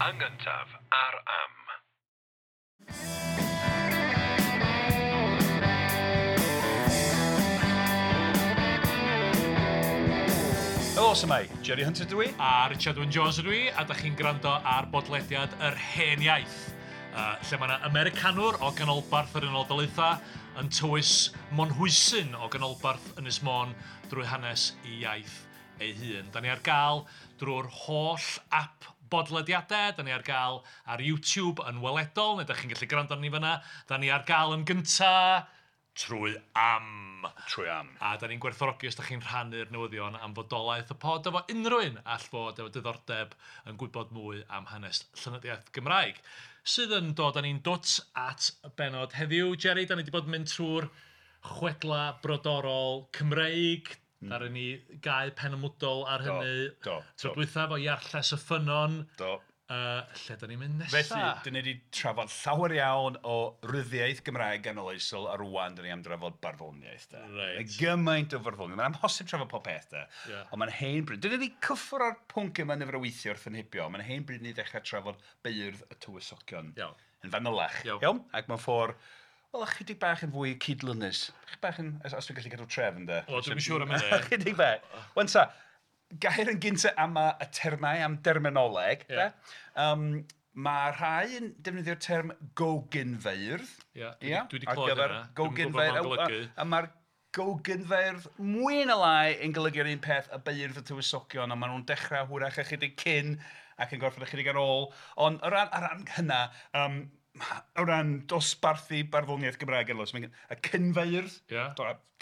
Yn gyntaf ar Am. Helo, su'mai? Jerry Hunter dwi. A Richard Wyn Jones ydw i, a da chi'n gwrando ar bodlediad Yr Hen Iaith, lle mae yna Americanwr o ganolbarth yr Unol Daleithiau yn tywys Monhwysyn o ganolbarth Ynys Môn drwy hanes ei iaith ei hun. Da ni ar gael drwy'r holl app bodlediadau, da ni ar gael ar YouTube yn weledol, neu da chi'n gallu gwrando arni fan'na. Da ni ar gael yn gynta trwy Am. Trwy Am. A da ni'n gwerthfawrogi os da chi'n rhannu'r newyddion am fodolaeth y pod efo unrhyw un all fod efo diddordeb yn gwybod mwy am hanes llenyddiaeth Gymraeg. Sydd yn dod â ni'n dwt at y benod heddiw. Jerry, da ni wedi bod yn mynd trwy'r chwedla brodorol Cymreig. Ddaru ni gau pen ymwdol ar hynny. Do, Tro dwytha efo Iarlles y Ffynnon. Do. Lle da ni'n mynd nesa? Felly, dyn ni wedi trafod llawer iawn o ryddiaith Gymraeg ganoloesol a rwan dyn ni am drafod barddoniaeth. De. Reit. Mae gymaint o farddoniaeth. Mae'n amhosib trafod pob peth, de. Yeah. Ond mae'n hen bryd. Dyn ni wedi cyffwrdd â'r pwnc yma nifer o weithiau wrth yn hibio. Mae'n hen bryd ni ddechrau trafod beirdd y tywysogion. Iawn. Yn fanylach. Iawn. Iawn? Ac mewn ffordd, wel, ychydig bach yn fwy cydlynus. Chydig bach yn, os dwi'n gallu cadw trefn, de. O, dwi'm yn siŵr am hynny. Ychydig bach. Wan ta, gair yn gyntaf am y termau, am derminoleg. Ie. De? Mae rhai yn defnyddio'r term gogynfeirdd. Ie, Ia, dwi 'di ar clywed gyfer hynna. Dwi'm yn gwybod be gogynfeirdd. ma'n golygu. A mae'r gogynfeirdd mwy na lai yn golygu'r un peth y beirdd y tywysogion, ond maen nhw'n dechrau hwyrach ychydig cyn ac yn gorffen ychydig ar ôl. Ond o ran hynna, o ran dosbarthu barddoniaeth Gymraeg yn los, mae'n y cynfeirdd, Ie.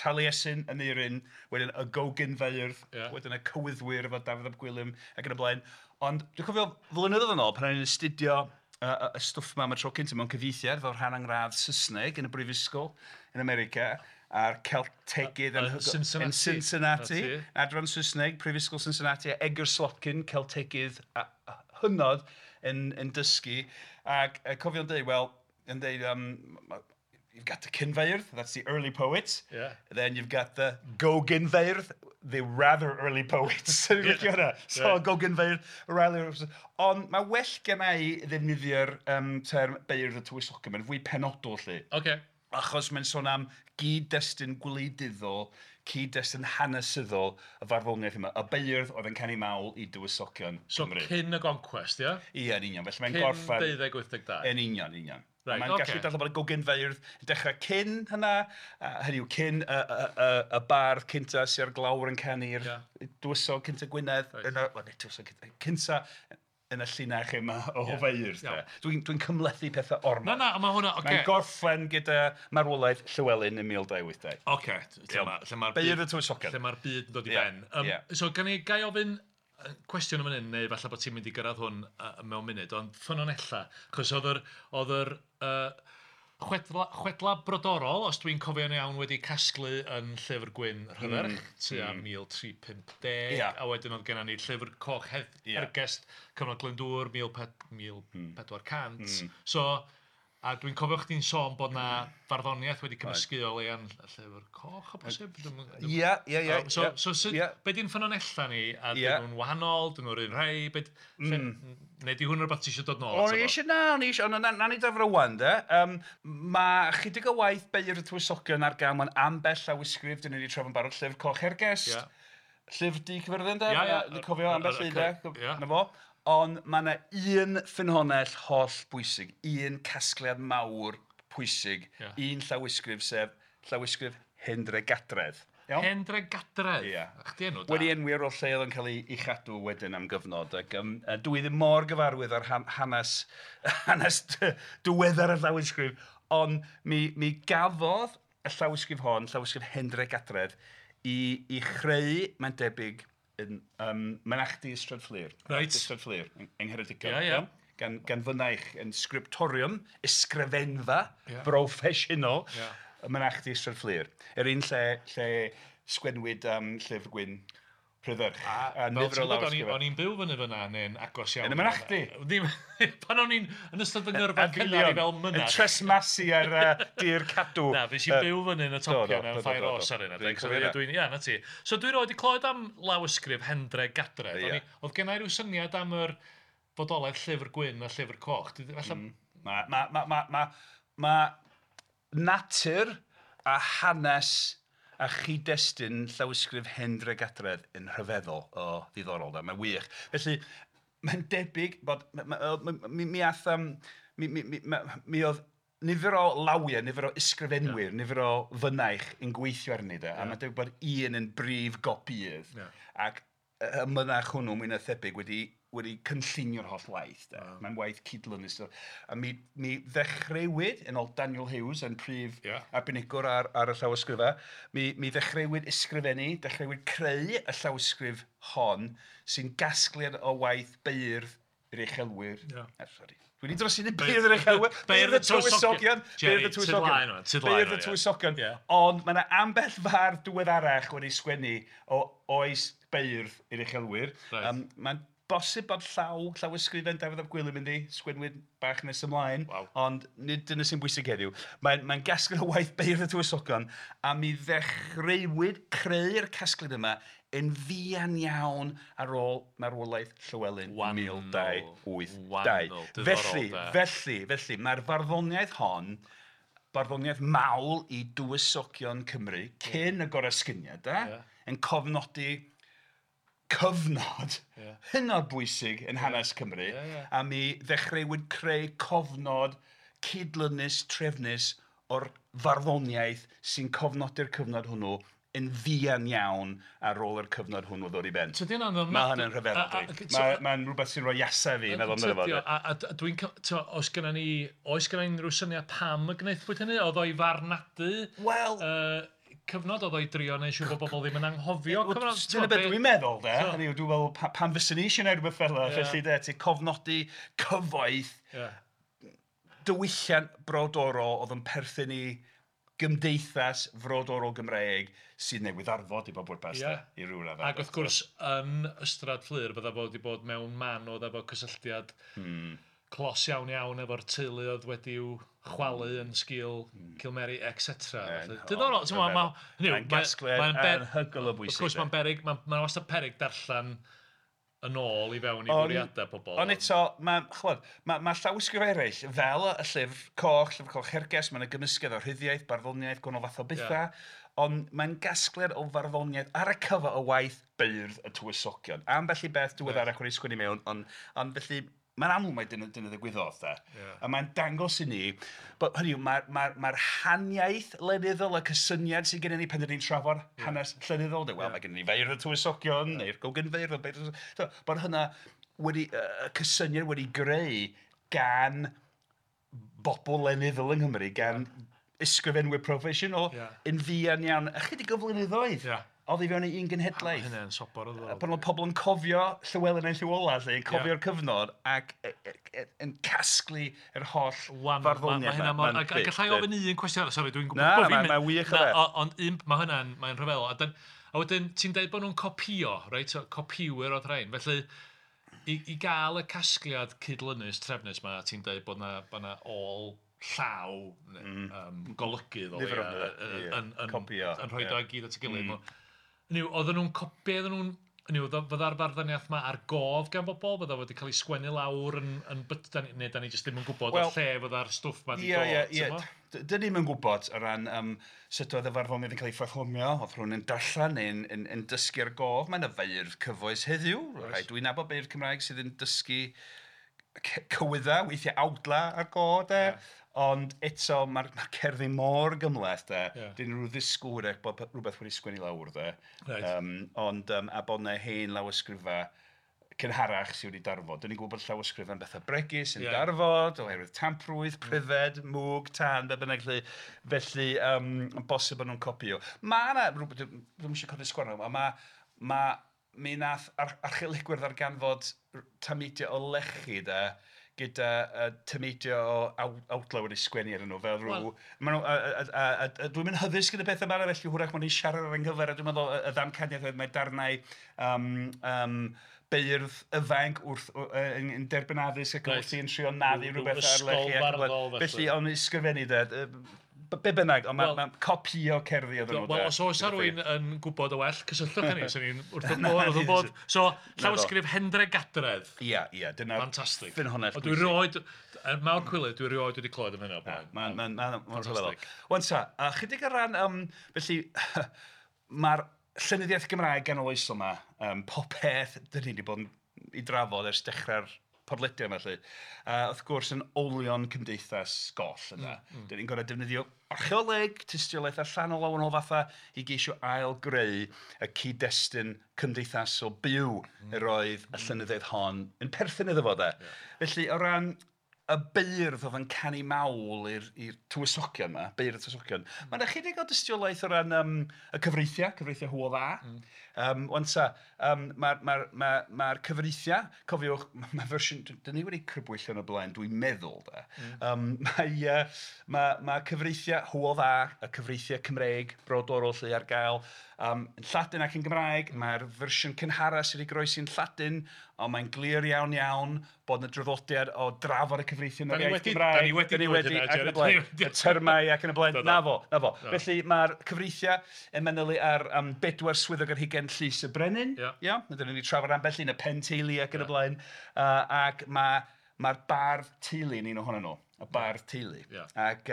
Taliesin, Aneirin, wedyn y gogynfeirdd, Ie. wedyn y cywyddwyr efo Dafydd ap Gwilym ac yn y blaen. Ond dwi'n cofio flynyddoedd yn ôl pan o'n i'n astudio y stwff 'ma am y tro cyntaf mewn cyfieithiad fel rhan angradd Saesneg yn y brifysgol yn America a'r Celtegydd Yn Cincinnati. yn Cincinnati, Na ti. adran Saesneg, Prifysgol Cincinnati, a Edgar Slotkin, Celtegydd a hynod yn dysgu. Ac cofio'n dweud, wel, yn dweud, you've got the cynfeirdd, that's the early poets. Yeah. Then you've got the gogynfeirdd, the rather early poets. Dwi'n licio hwnna. So, Yeah. gogynfeirdd, rather early. Ond mae well gen i ddefnyddio'r term beirdd y tywysogion, mae'n fwy penodol 'lly. Ocê. Achos mae'n sôn am gyd-destun gwleidyddol, cyd-destun hanesyddol y farddoniaeth yma. Y beirdd oedd yn canu mawl i dywysogion So Cymru. cyn y goncwest, ie? Ie, yn union. Felly mae'n Cyn gorffen... 1282. Yn union, union. Right, mae'n ocê. gallu dadlau bod y gogynfeirdd yn dechrau cyn hynna, hynny yw cyn y bardd cynta sy'n ar glawr yn canu'r dywysog cynta Gwynedd, Reit. yn y, wel, nid tywysog cynta, cynta yn y llinach yma o Ie. feirdd. Iawn. Dwi'n cymhlethu pethau ormod. Na, na, mae hwnna, ocê. Mae'n gorffen gyda marwolaeth Llywelyn yn 1282. Ocê, lle mae'r Beirdd y tywysogion. Lle mae'r byd yn dod i Ie, ben. ie. So, gan i gai ofyn cwestiwn am hyn, neu falle bod ti'n mynd i gyrraedd hwn mewn munud, ond ffynonella, chos oedd yr chwedla brodorol, os dwi'n cofio'n iawn, wedi casglu yn Llyfr Gwyn Rhydderch, tua 1350, Ie. a wedyn oedd gennym ni Llyfr Coch Hergest, cyfnod Glyndŵr, 1400. So, a dwi'n cofio chdi'n sôn bod na farddoniaeth wedi cymysgu o leia'n Llyfr Coch, o bosib? Ie, ie, ie. So, ie, so sut, ie. be di'n ffynonella ni? A Ie. dyn nhw'n wahanol, dyn nhw'r un rhai, be, neu di hwn rhywbeth ti eisiau dod nôl O'n ato i fo? eisiau, na, o'n i eisiau, ond na ni dafro wan, de. Mae chydig o waith beirdd y tywysogion ar gael mewn ambell lawysgrif, dyn ni wedi trafod yn barod, Llyfr Coch Hergest, Ie. Llyfr Du Cyfyrddin, de, Ie, ie. Dwi'n cofio ambell un, de, Ie. na fo. Ond mae yna un ffynhonnell holl bwysig, un casgliad mawr pwysig, Ie. un llawysgrif, sef llawysgrif Hendre Gadredd. Iawn? Hendre Gadredd? Ie. A chdi enw da. Wedi enwi ar ôl lle oedd yn cael ei chadw wedyn am gyfnod. Ac, dwi ddim mor gyfarwydd ar hanes, hanes diweddar y llawysgrif, ond mi gafodd y llawysgrif hon, llawysgrif Hendre Gadredd, i chreu, mae'n debyg, yn mynachdy Ystrad Fflur. Reit. Ystrad Fflur, yng Ngheredigion. Ie, ie. Iawn? Gan fynaich yn scriptorium, ysgrifenfa, Ie. broffesiynol, Ie. y mynachdy Ystrad Fflur. Yr un lle sgwennwyd Llyfr Gwyn Rhydderch. A Fel nifer ti'n o gwybod, o'n lawysgrifau. o'n i'n byw fyny fyna, neu'n agos iawn. Yn y mynachdy? Ddim, pan o'n i'n yn ystod fy ngyrfa cynnar i fel Yn mynach. tresmasu ar dir cadw. Na, fes i byw fyny yn y do, topia do, mewn do, ffair do, do. os ar un Dwi'n adeg. So, cofio ie, hynna. dwi'n, ia, na ti. So dwi roed i clywed am lawysgrif Hendre Gadredd. Ie. Oedd gen i ryw syniad am yr fodolaeth Llyfr Gwyn a Llyfr Coch. Falle... Mae natur a hanes a chyd-destun llawysgrif Hendre Gadredd yn rhyfeddol o ddiddorol. Mae'n wych. Felly, mae'n debyg bod... Mi oedd nifer o lawiau, nifer o ysgrifenwyr, nifer o fynaich yn gweithio arni. A mae'n debyg bod un yn brif gopïydd. Ac y mynach hwnnw, mwy na thebyg, wedi cynllunio'r holl waith. Mae'n waith cydlynus. A mi ddechreuwyd, yn ôl Daniel Hughes, yn prif arbenigwr ar y llawysgrifau, mi ddechreuwyd ysgrifennu, dechreuwyd creu y llawysgrif hon sy'n gasgliad o waith beirdd yr uchelwyr. Sori. Dwi wedi dros i beirdd yr uchelwyr, beirdd y tywysogion, beirdd y tywysogion, beirdd y tywysogion. Ond mae yna ambell fardd diweddarach wedi sgwennu o oes beirdd yr uchelwyr. Mae'n bosib bod llawysgrifen Dafydd ap Gwilym yndi, sgwennwyd bach nes ymlaen, ond nid dyna sy'n bwysig heddiw. Mae'n gasgliad o waith beirdd y tywysogion, a mi ddechreuwyd creu'r casgliad yma yn fuan iawn ar ôl marwolaeth Llywelyn 1282. Felly, mae'r farddoniaeth hon, barddoniaeth mawl i dywysogion Cymru, cyn y goresgyniad, yn cofnodi cyfnod hynod bwysig yn hanes Cymru, a mi ddechreuwyd creu cofnod cydlynus, trefnus o'r farddoniaeth sy'n cofnodi'r cyfnod hwnnw yn fuan iawn ar ôl yr cyfnod hwnnw ddod i ben. Mae hynny'n rhyfeddol. Mae'n rhywbeth sy'n rhoi iasau fi, meddwl amdano fo. A dwi'n... Oes genna ni unrhyw syniad pam y gwnaethpwyd hynny? Oedd o'i farnadu? Wel... Cyfnod oedd o'i drio neu siŵr bod bobl ddim yn anghofio cyfnod. Dyna beth dwi'n meddwl, de. Hynny yw, dwi'n meddwl pam fyswn i eisiau gwneud rhywbeth fel yna, felly de, ti'n cofnodi cyfoeth diwylliant brodorol oedd yn perthyn i gymdeithas frodorol Gymraeg sydd newydd arfod i bob pwrpas, de, i ryw raddau. Ac wrth gwrs, yn Ystrad Fflur, bydda fo wedi bod mewn man oedd efo cysylltiad clos iawn iawn efo'r teulu oedd wedi'w chwalu yn sgil Cilmeri, etc. Diddorol, ti'n gwbod, mae'n gasgliad anhygoel o bwysig. Wrth gwrs, mae'n beryg, mae'n wastad peryg darllen yn ôl i fewn i fwriadau pobl. Ond eto, mae llawysgrif eraill, fel y Llyfr Coch, Llyfr Coch Herges, mae'n gymysgedd o rhyddiaeth, barddoniaeth, gwahanol fath o bethau, ond mae'n gasgliad o farddoniaeth ar y cyfa o waith beirdd y tywysogion. Ambell i beth diweddarach wedi sgwennu mewn, ond felly mae'n amlwg mai dyna ddigwyddodd, de. A mae'n dangos i ni, bod, hynny yw, mae'r haniaeth lenyddol, y cysyniad sydd gennym ni pan dyn ni'n trafod hanes llenyddol, de, wel, mae gennym ni feirdd y tywysogion, neu'r gogynfeirdd, bod hynna wedi, y cysyniad wedi greu gan bobl lenyddol yng Nghymru, gan ysgrifenwyr proffesiynol, yn fuan iawn, ychydig o flynyddoedd. Oedd i fewn i un genhedlaeth. Hynny'n sobor o ddod. Pan oedd pobl yn cofio Llywelyn ein Llyw Ola, yn cofio'r cyfnod ac yn casglu yr holl farddoniaeth. Mae hynna. Gallai ofyn un cwestiwn arall, sori, dwi'n gwybod bod fi'n mynd. Na, mae'n wych o beth. Ond mae hynna'n, mae'n rhyfeddol. A wedyn, ti'n deud bod nhw'n copïo, reit? Copïwyr oedd rhain. Felly, i gael y casgliad cydlynus, trefnus yma, ti'n deud bod na ôl llaw golygydd o leia yn rhoi o gyd at ei gilydd. Hynny yw, oedden nhw'n copio, hynny yw, fydda'r farddoniaeth yma ar gof gan bobl, fydda wedi cael ei sgwennu lawr yn byta, neu da ni jyst ddim yn gwybod o lle fydda'r stwff ma wedi dod. Ie. Dyn ni'm yn gwybod o ran sut oedd y farddoniaeth yn cael ei pherfformio, oedd rhywun yn darllen neu'n yn dysgu ar gof. Mae yna feirdd cyfoes heddiw, rhai dwi'n nabod beirdd Cymraeg sydd yn dysgu cywydda, weithiau awdla ar go, de. Ond eto, mae'r cerddi mor gymhleth, de. Dyn nhw ddisgwyl hwyrach bod rhywbeth wedi sgwennu lawr, de. Ond, a bod yna hen lawysgrifau cynharach sydd wedi darfod. Dyn ni'n gwybod bod llawysgrifau'n bethau bregus yn darfod, oherwydd tamprwydd, pryfed, mwg, tân, be bynnag lle. Felly, bosib bod nhw'n copïo. Mae yna, dwi'm eisiau codi sgwarnog, ond mi nath archeolegwyr ddarganfod tameidiau o lechi, de, gyda tameidiau o awdlau wedi sgwennu arnyn nhw, fel rhyw... Dwi'n mynd hyddysg yn y pethau yma, felly hwyrach maen nhw'n siarad ar ynghyfer, a dwi'n meddwl y ddamcaniaeth oedd mae darnau beirdd ifanc wrth yn derbyn addysg ac wrth i'n trio naddu rhywbeth ar lechi. Ysgol farddol, felly. Felly, ond ysgrifennu, de, Be bynnag, ond mae'n copïo cerddi oedden nhw. Wel, os oes rhywun yn gwybod o well, cysylltwch â ni, 'sen ni'n wrth y bodd. So, llawysgrif Hendre Gadredd. Ia, ia, dyna'r Fantastic. Ffynhonnell bwysig. Dwi rioed, er mawr cwilydd, dwi rioed wedi clywed am hynna o'r blaen. Mae'n rhyfeddol. Wan ta, chydig o ran, felly, mae'r llenyddiaeth Gymraeg ganoloesol yma, popeth dyn ni wedi bod yn ei drafod ers dechrau'r podlediad yma, felly. Wrth gwrs, yn olion cymdeithas goll yna. Dyn ni'n gorfod defnyddio archeoleg, tystiolaeth allanol o wahanol fatha i geisio ail-greu y cyd-destun cymdeithasol byw yr oedd y llenyddiaeth hon yn perthyn iddo fo, de. Felly, o ran y beirdd oedd yn canu mawl i'r tywysogion yma, beirdd y tywysogion, mae yna chydig o dystiolaeth o ran y cyfreithiau, cyfreithiau Hywel Dda. Wan ta, mae'r cyfreithiau, cofiwch, mae fersiwn, dyn ni wedi crybwyll yn y blaen, dwi'n meddwl, de. Mae cyfreithiau Hywel Dda, y cyfreithiau Cymreig, brodorol lle ar gael, yn Lladin ac yn Gymraeg. Mae'r fersiwn cynhara sydd wedi goroesi'n Lladin, ond mae'n glir iawn iawn bod yna draddodiad o drafod y cyfreithiau yn yr iaith Gymraeg. Da ni wedi dweud hynna, Jerry. Y termau ac yn y blaen. Na fo, na fo. Felly mae'r cyfreithiau yn manylu ar 4 swyddog ar hugain llys y brenin. Ia, dyna ni trafod ambell un, y pen teulu ac yn y blaen. Ac mae'r bardd teulu yn un ohonyn nhw. Y bardd teulu. Ac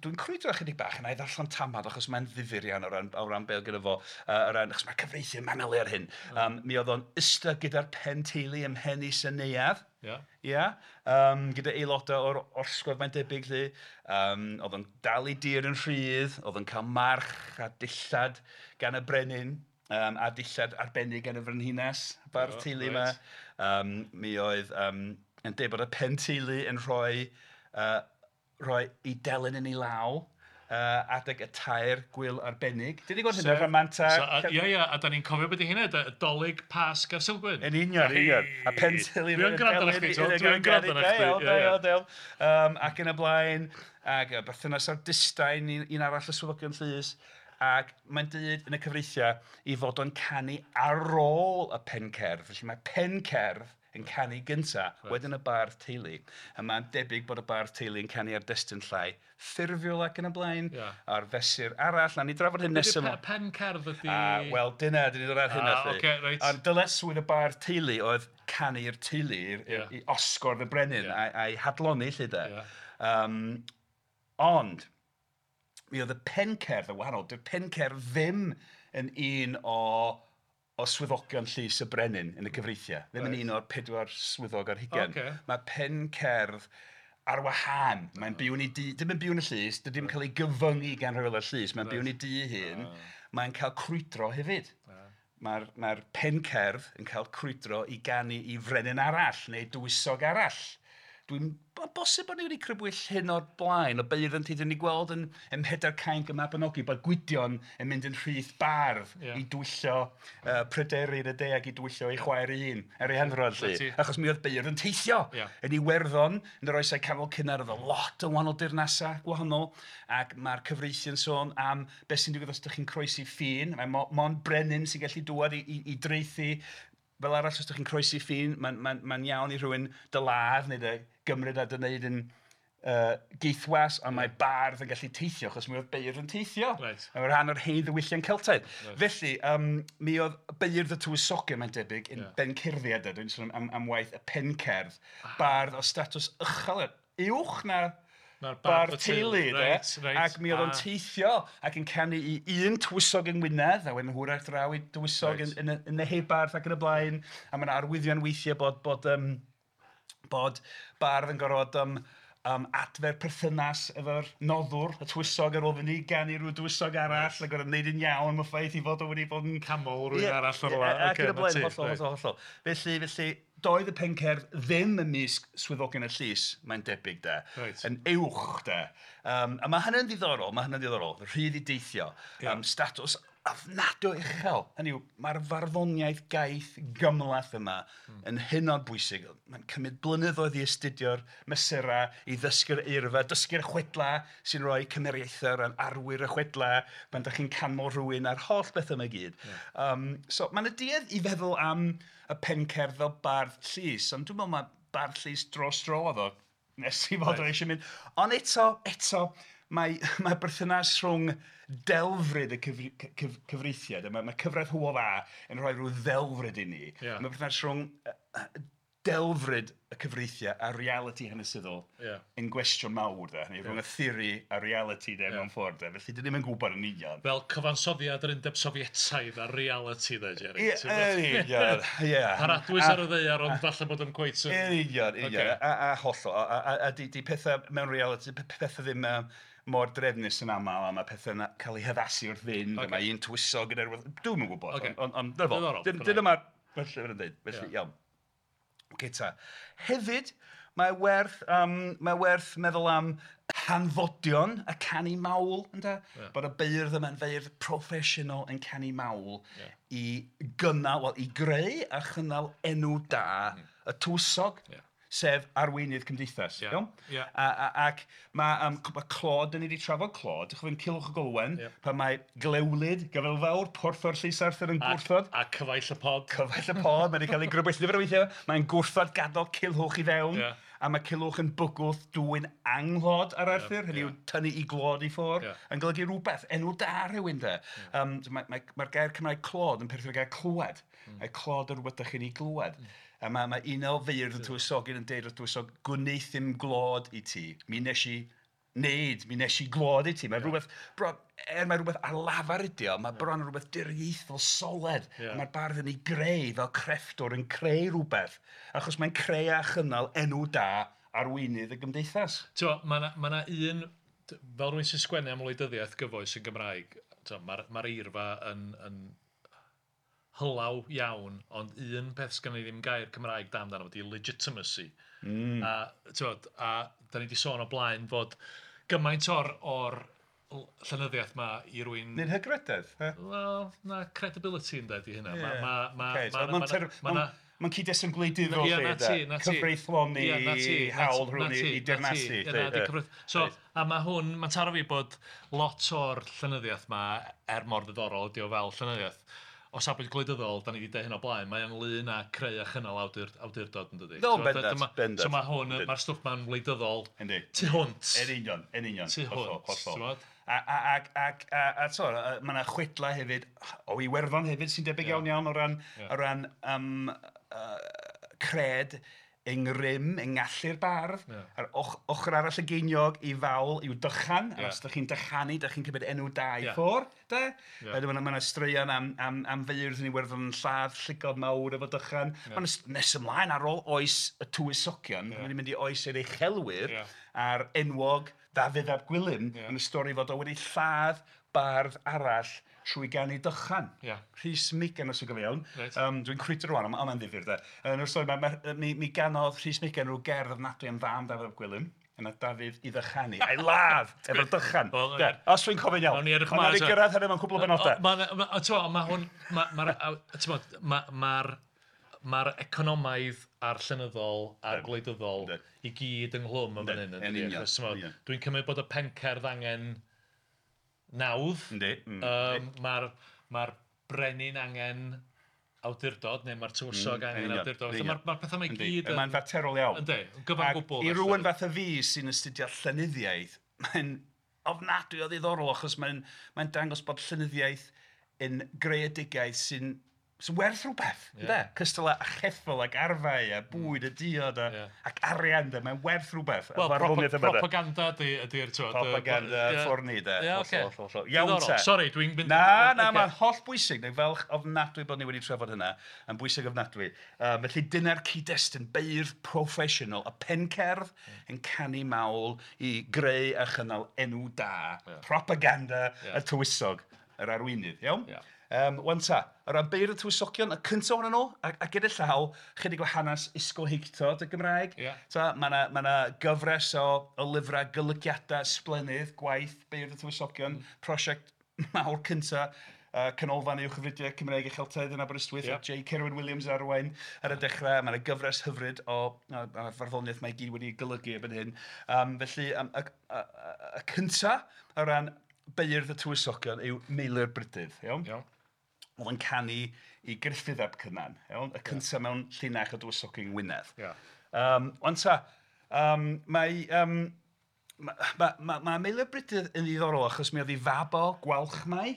dwi'n crwydro ychydig bach yn ei ddarllen tamad achos mae'n ddifyr iawn o ran beth gyda fo, achos mae'r cyfreithiau manylu ar hyn. Mi oedd o'n ista gyda'r pen teulu ym mhen is y neuadd. Ia. Gyda aelodau o'r orsgodd mae'n debyg lly. Oedd o'n dal ei dir yn rhydd, oedd o'n cael march a dillad gan y brenin, a dillad arbennig gan y frenhines, bardd teulu yma. Mi oedd yn deud bod y pen teulu yn rhoi ei delyn yn ei law adeg y 3 gwyl arbennig. Dyn ni'n gweld hynna, rhamanta... Ia, ia, a da ni'n cofio beth i hynna, Dolig, Pasg a'r Sulgwyn. Yn union, union. A pen teulu... Dwi'n gwrando ar chdi, dwi'n gwrando ar chdi. Ac yn y blaen, ac berthynas â'r distain, un arall y swyddogion llys, ac mae'n dweud yn y cyfreithiau i fod o'n canu ar ôl y pencerdd. Felly mae pencerdd yn canu gynta, wedyn y bardd teulu. A mae'n debyg bod y bardd teulu yn canu ar destun llai ffurfiol ac yn y blaen, a'r fesur arall. Na ni drafod hyn nesaf yma. Pen cerdd ydi... Wel, dyna, dyn ni ddod ar hynna. Ond dyletswydd y bardd teulu oedd canu'r teulu i osgordd y brenin a'i hadlonni lle de. Ond, mi oedd y pencerdd yn wahanol. Dy'r pencerdd ddim yn un o swyddogion llys y brenin yn y cyfreithiau. Ddim yn un o'r 4 swyddog ar hugain. Mae pencerdd ar wahân. Mae'n byw yn ei dŷ, dim yn byw yn y llys, dydy ddim yn cael ei gyfyngu gan rheolau'r llys. Mae'n byw yn ei dŷ hun. Mae'n cael crwydro hefyd. Mae'r pencerdd yn cael crwydro i ganu i frenin arall neu dywysog arall. Dwi'n bosib bod ni wedi crybwyll hyn o'r blaen, o beirdd yn teithio ni gweld yn Mhedair Cainc y Mabinogi, bod Gwydion yn mynd yn rhith bardd i dwyllo Pryderi yn y de ac i dwyllo ei chwaer ei hun ar ei handrodd lly. Achos mi oedd beirdd yn teithio yn Iwerddon, yn yr oesau canol cynnar, oedd lot o wahanol dirnasau gwahanol, ac mae'r cyfreithiau'n sôn am beth sy'n digwydd os ydych chi'n croesi ffin. Mae mond brenin sy'n gallu dŵad i draethu. Fel arall, os ydych chi'n croesi ffin, mae'n iawn i rhywun dy ladd neu dy gymryd a dy wneud yn geithwas, ond mae bardd yn gallu teithio, achos mi oedd beirdd yn teithio. Mae'n rhan o'r hen ddiwylliant Celtaidd. Felly, mi oedd beirdd y tywysogion, mae'n debyg, yn bencerddiad, dwi'n sôn am waith y pencerdd, bardd o statws uchel, uwch na bardd teulu, de. Ac mi oedd o'n teithio ac yn canu i un tywysog yng Ngwynedd, a wedyn hwyrach draw i dywysog yn y Neheubarth ac yn y blaen. A mae yna arwyddion weithiau bod bardd yn gorfod adfer perthynas efo'r noddwr, y tywysog, ar ôl fynd i ganu rhyw dywysog arall, a gorfod wneud yn iawn am y ffaith i fod o wedi bod yn... Camol rhywun arall o'r ola. Ac yn y blaen, hollol, hollol, hollol. Felly, doedd y pencerdd ddim ymysg swyddogion y llys, mae'n debyg de, yn uwch de. A mae hynny'n ddiddorol, rhydd i deithio, statws ofnadwy uchel. Hynny yw, mae'r farddoniaeth gaeth gymhleth yma yn hynod bwysig. Mae'n cymryd blynyddoedd i astudio'r mesurau, i ddysgu'r eirfa, dysgu'r chwedlau sy'n rhoi cymeriaethau o ran arwyr y chwedlau, pan dach chi'n canmol rhywun a'r holl beth yma i gyd. So mae'n y duedd i feddwl am y pencerdd fel bardd llys, ond dwi'n meddwl mae bardd llys dros dro oedd o, nes i fod o eisiau mynd. Ond eto, Mae berthynas rhwng delfryd y cyfreithiau, mae cyfraith Hywel Dda yn rhoi rhyw ddelfryd i ni. Mae berthynas rhwng delfryd y cyfreithiau a realiti hanesyddol yn gwestiwn mawr, de. Neu rhwng y theori a realiti, de, mewn ffordd, de. Felly, dyn ni'm yn gwybod yn union. Fel cyfansoddiad yr Undeb Sofietaidd a realiti, de, Jerry. Ie, yn union, ie. Paradwys ar y ddaear, ond falle bod o'n cweit yn... Yn union, union. A hollol. A di pethau mewn realiti, pethau ddim mor drefnus yn aml, a mae pethau'n cael eu haddasu wrth fynd, a mae un tywysog gyda rhywbeth... Dwi'm yn gwybod, ond dyna mae'r llyfr yn dweud, felly iawn. Ocê ta. Hefyd, mae werth meddwl am hanfodion y canu mawl, ynde? Bod y beirdd yma'n feirdd proffesiynol yn canu mawl i gynnal, wel, i greu a chynnal enw da y tywysog, sef arweinydd cymdeithas. Iawn? Ac mae clod, dyn ni wedi trafod clod, dych chi'n Culhwch ac Olwen, pan mae Glewlyd, Gyfel Fawr, porthor Llys Arthur yn gwrthod. A cyfaill y pod. Cyfaill y pod, mae wedi cael ei grybwyll nifer o weithiau. Mae'n gwrthod gadael Culhwch i fewn, a mae Culhwch yn bygwth dwyn anghlod ar Arthur, hynny yw tynnu i glod i ffwrdd, yn golygu rhywbeth, enw da rhywun de. Mae'r gair Cymraeg clod yn perthyn i'r gair clywed. Mae clod yn rhywbeth dych chi'n ei glywed. A mae un o feirdd y tywysogyn yn deud wrth tywysog, gwneithum glod i ti. Mi nes i wneud, mi nes i glod i ti. Mae rhywbeth, mae rhywbeth ar lafar ydi o, mae bron yn rhywbeth diriaethol soled. Mae'r bardd yn ei greu fel crefftwr yn creu rhywbeth. Achos mae'n creu a chynnal enw da arweinydd y gymdeithas. Mae yna un, fel rhywun sy'n sgwennu am wleidyddiaeth gyfoes yn Gymraeg, mae'r eirfa yn hylaw iawn, ond un peth sgan i ddim gair Cymraeg da amdano ydy legitimacy. A a da ni wedi sôn o blaen fod gymaint o'r llenyddiaeth ma i rywun... Neu'n hygrededd? Wel, na, credibility yn dweud i hynna. Mae'n cyd-destun gwleidyddol lle, cyfreithloni hawl rhywun i dirnasu. So, a mae hwn, mae'n taro fi bod lot o'r llenyddiaeth ma, er mor ddiddorol ydi o fel llenyddiaeth, o safbwynt gwleidyddol, da ni wedi deud hyn o blaen, mae ynglyn â creu a chynnal awdurdod yn dydi. No, bendant, bendant. So mae hwn, mae'r stwff ma'n wleidyddol tu hwnt. Yn union, yn union. Tu hwnt. A mae yna chwedlau hefyd, o Iwerddon hefyd, sy'n debyg iawn iawn o ran cred yng ngrym, yng ngallu'r bardd, a'r ochr arall y geiniog i fawl i'w dychan, a os ydych chi'n dychanu, ydych chi'n cymryd enw da i ffwrdd, de? Mae yna straeon am feirdd yn Iwerddon yn lladd llygod mawr efo dychan. Mae'n nes ymlaen ar ôl oes y tywysogion, mae'n mynd i oes yr uchelwyr, a'r enwog Dafydd ap Gwilym, yn y stori fod o wedi lladd bardd arall trwy ganu dychan. Rhys Megan, os yw'n gofio iawn. Dwi'n crwydro rwan, ond mae'n ddifyr, de. Yn y stori, mi ganodd Rhys Megan rhyw gerdd ofnadwy am fam Dafydd ap Gwilym. Yna Dafydd i ddychanu, a'i ladd efo'r dychan. Os dwi'n cofio'n iawn. Ond nawn ni gyrraedd hynny mewn cwpl o benodau. Mae'r economaidd a'r llenyddol a'r gwleidyddol i gyd ynghlwm yn fan hyn. Dwi'n cymryd bod y pencerdd angen nawdd. Mae'r brenin angen awdurdod, neu mae'r tywysog angen awdurdod. Mae'r pethau mae gyd... Mae'n faterol iawn. Yndi, gyfan gwbl. I rywun fath o fi sy'n astudio llenyddiaeth, mae'n ofnadwy o ddiddorol achos mae'n dangos bod llenyddiaeth yn greadigaeth sy'n werth rhywbeth, ynde? Cystal â cheffyl ac arfau a bwyd a diod ac arian, de, mae'n werth rhywbeth. Wel, propaganda ydy'r... Propaganda ffwrni, de. Iawn te. Sori, dwi'n mynd... Na, mae'n holl bwysig. Dwi'n falch ofnadwy bod ni wedi trafod hynna. Yn bwysig ofnadwy. Felly dyna'r cyd-destun beirdd proffesiynol, y pencerdd yn canu mawl i greu a chynnal enw da, propaganda y tywysog, yr arweinydd, iawn? Wan ta, o ran beirdd y tywysogion, y cyntaf ohonyn nhw, a gyda llaw, chydig o hanes ysgolheictod y Gymraeg. Mae yna gyfres o lyfrau golygiadau sblennydd, gwaith beirdd y tywysogion, prosiect mawr cyntaf, Canolfan Uwchgyfrifiadau Cymraeg a Cheltaidd yn Aberystwyth, J. Cerwyn Williams arwain ar y dechrau. Mae yna gyfres hyfryd o farddoniaeth mae i gyd wedi golygu erbyn hyn. Felly, y cyntaf o ran beirdd y tywysogion yw Meilir Brydydd, iawn? Oedd yn canu i Gruffydd ap Cynan, iawn? Y cyntaf mewn llinach o dywysogion Ngwynedd. Wan ta, mae Mae Meilyr Brydydd yn ddiddorol achos mi oedd ei fab o Gwalchmai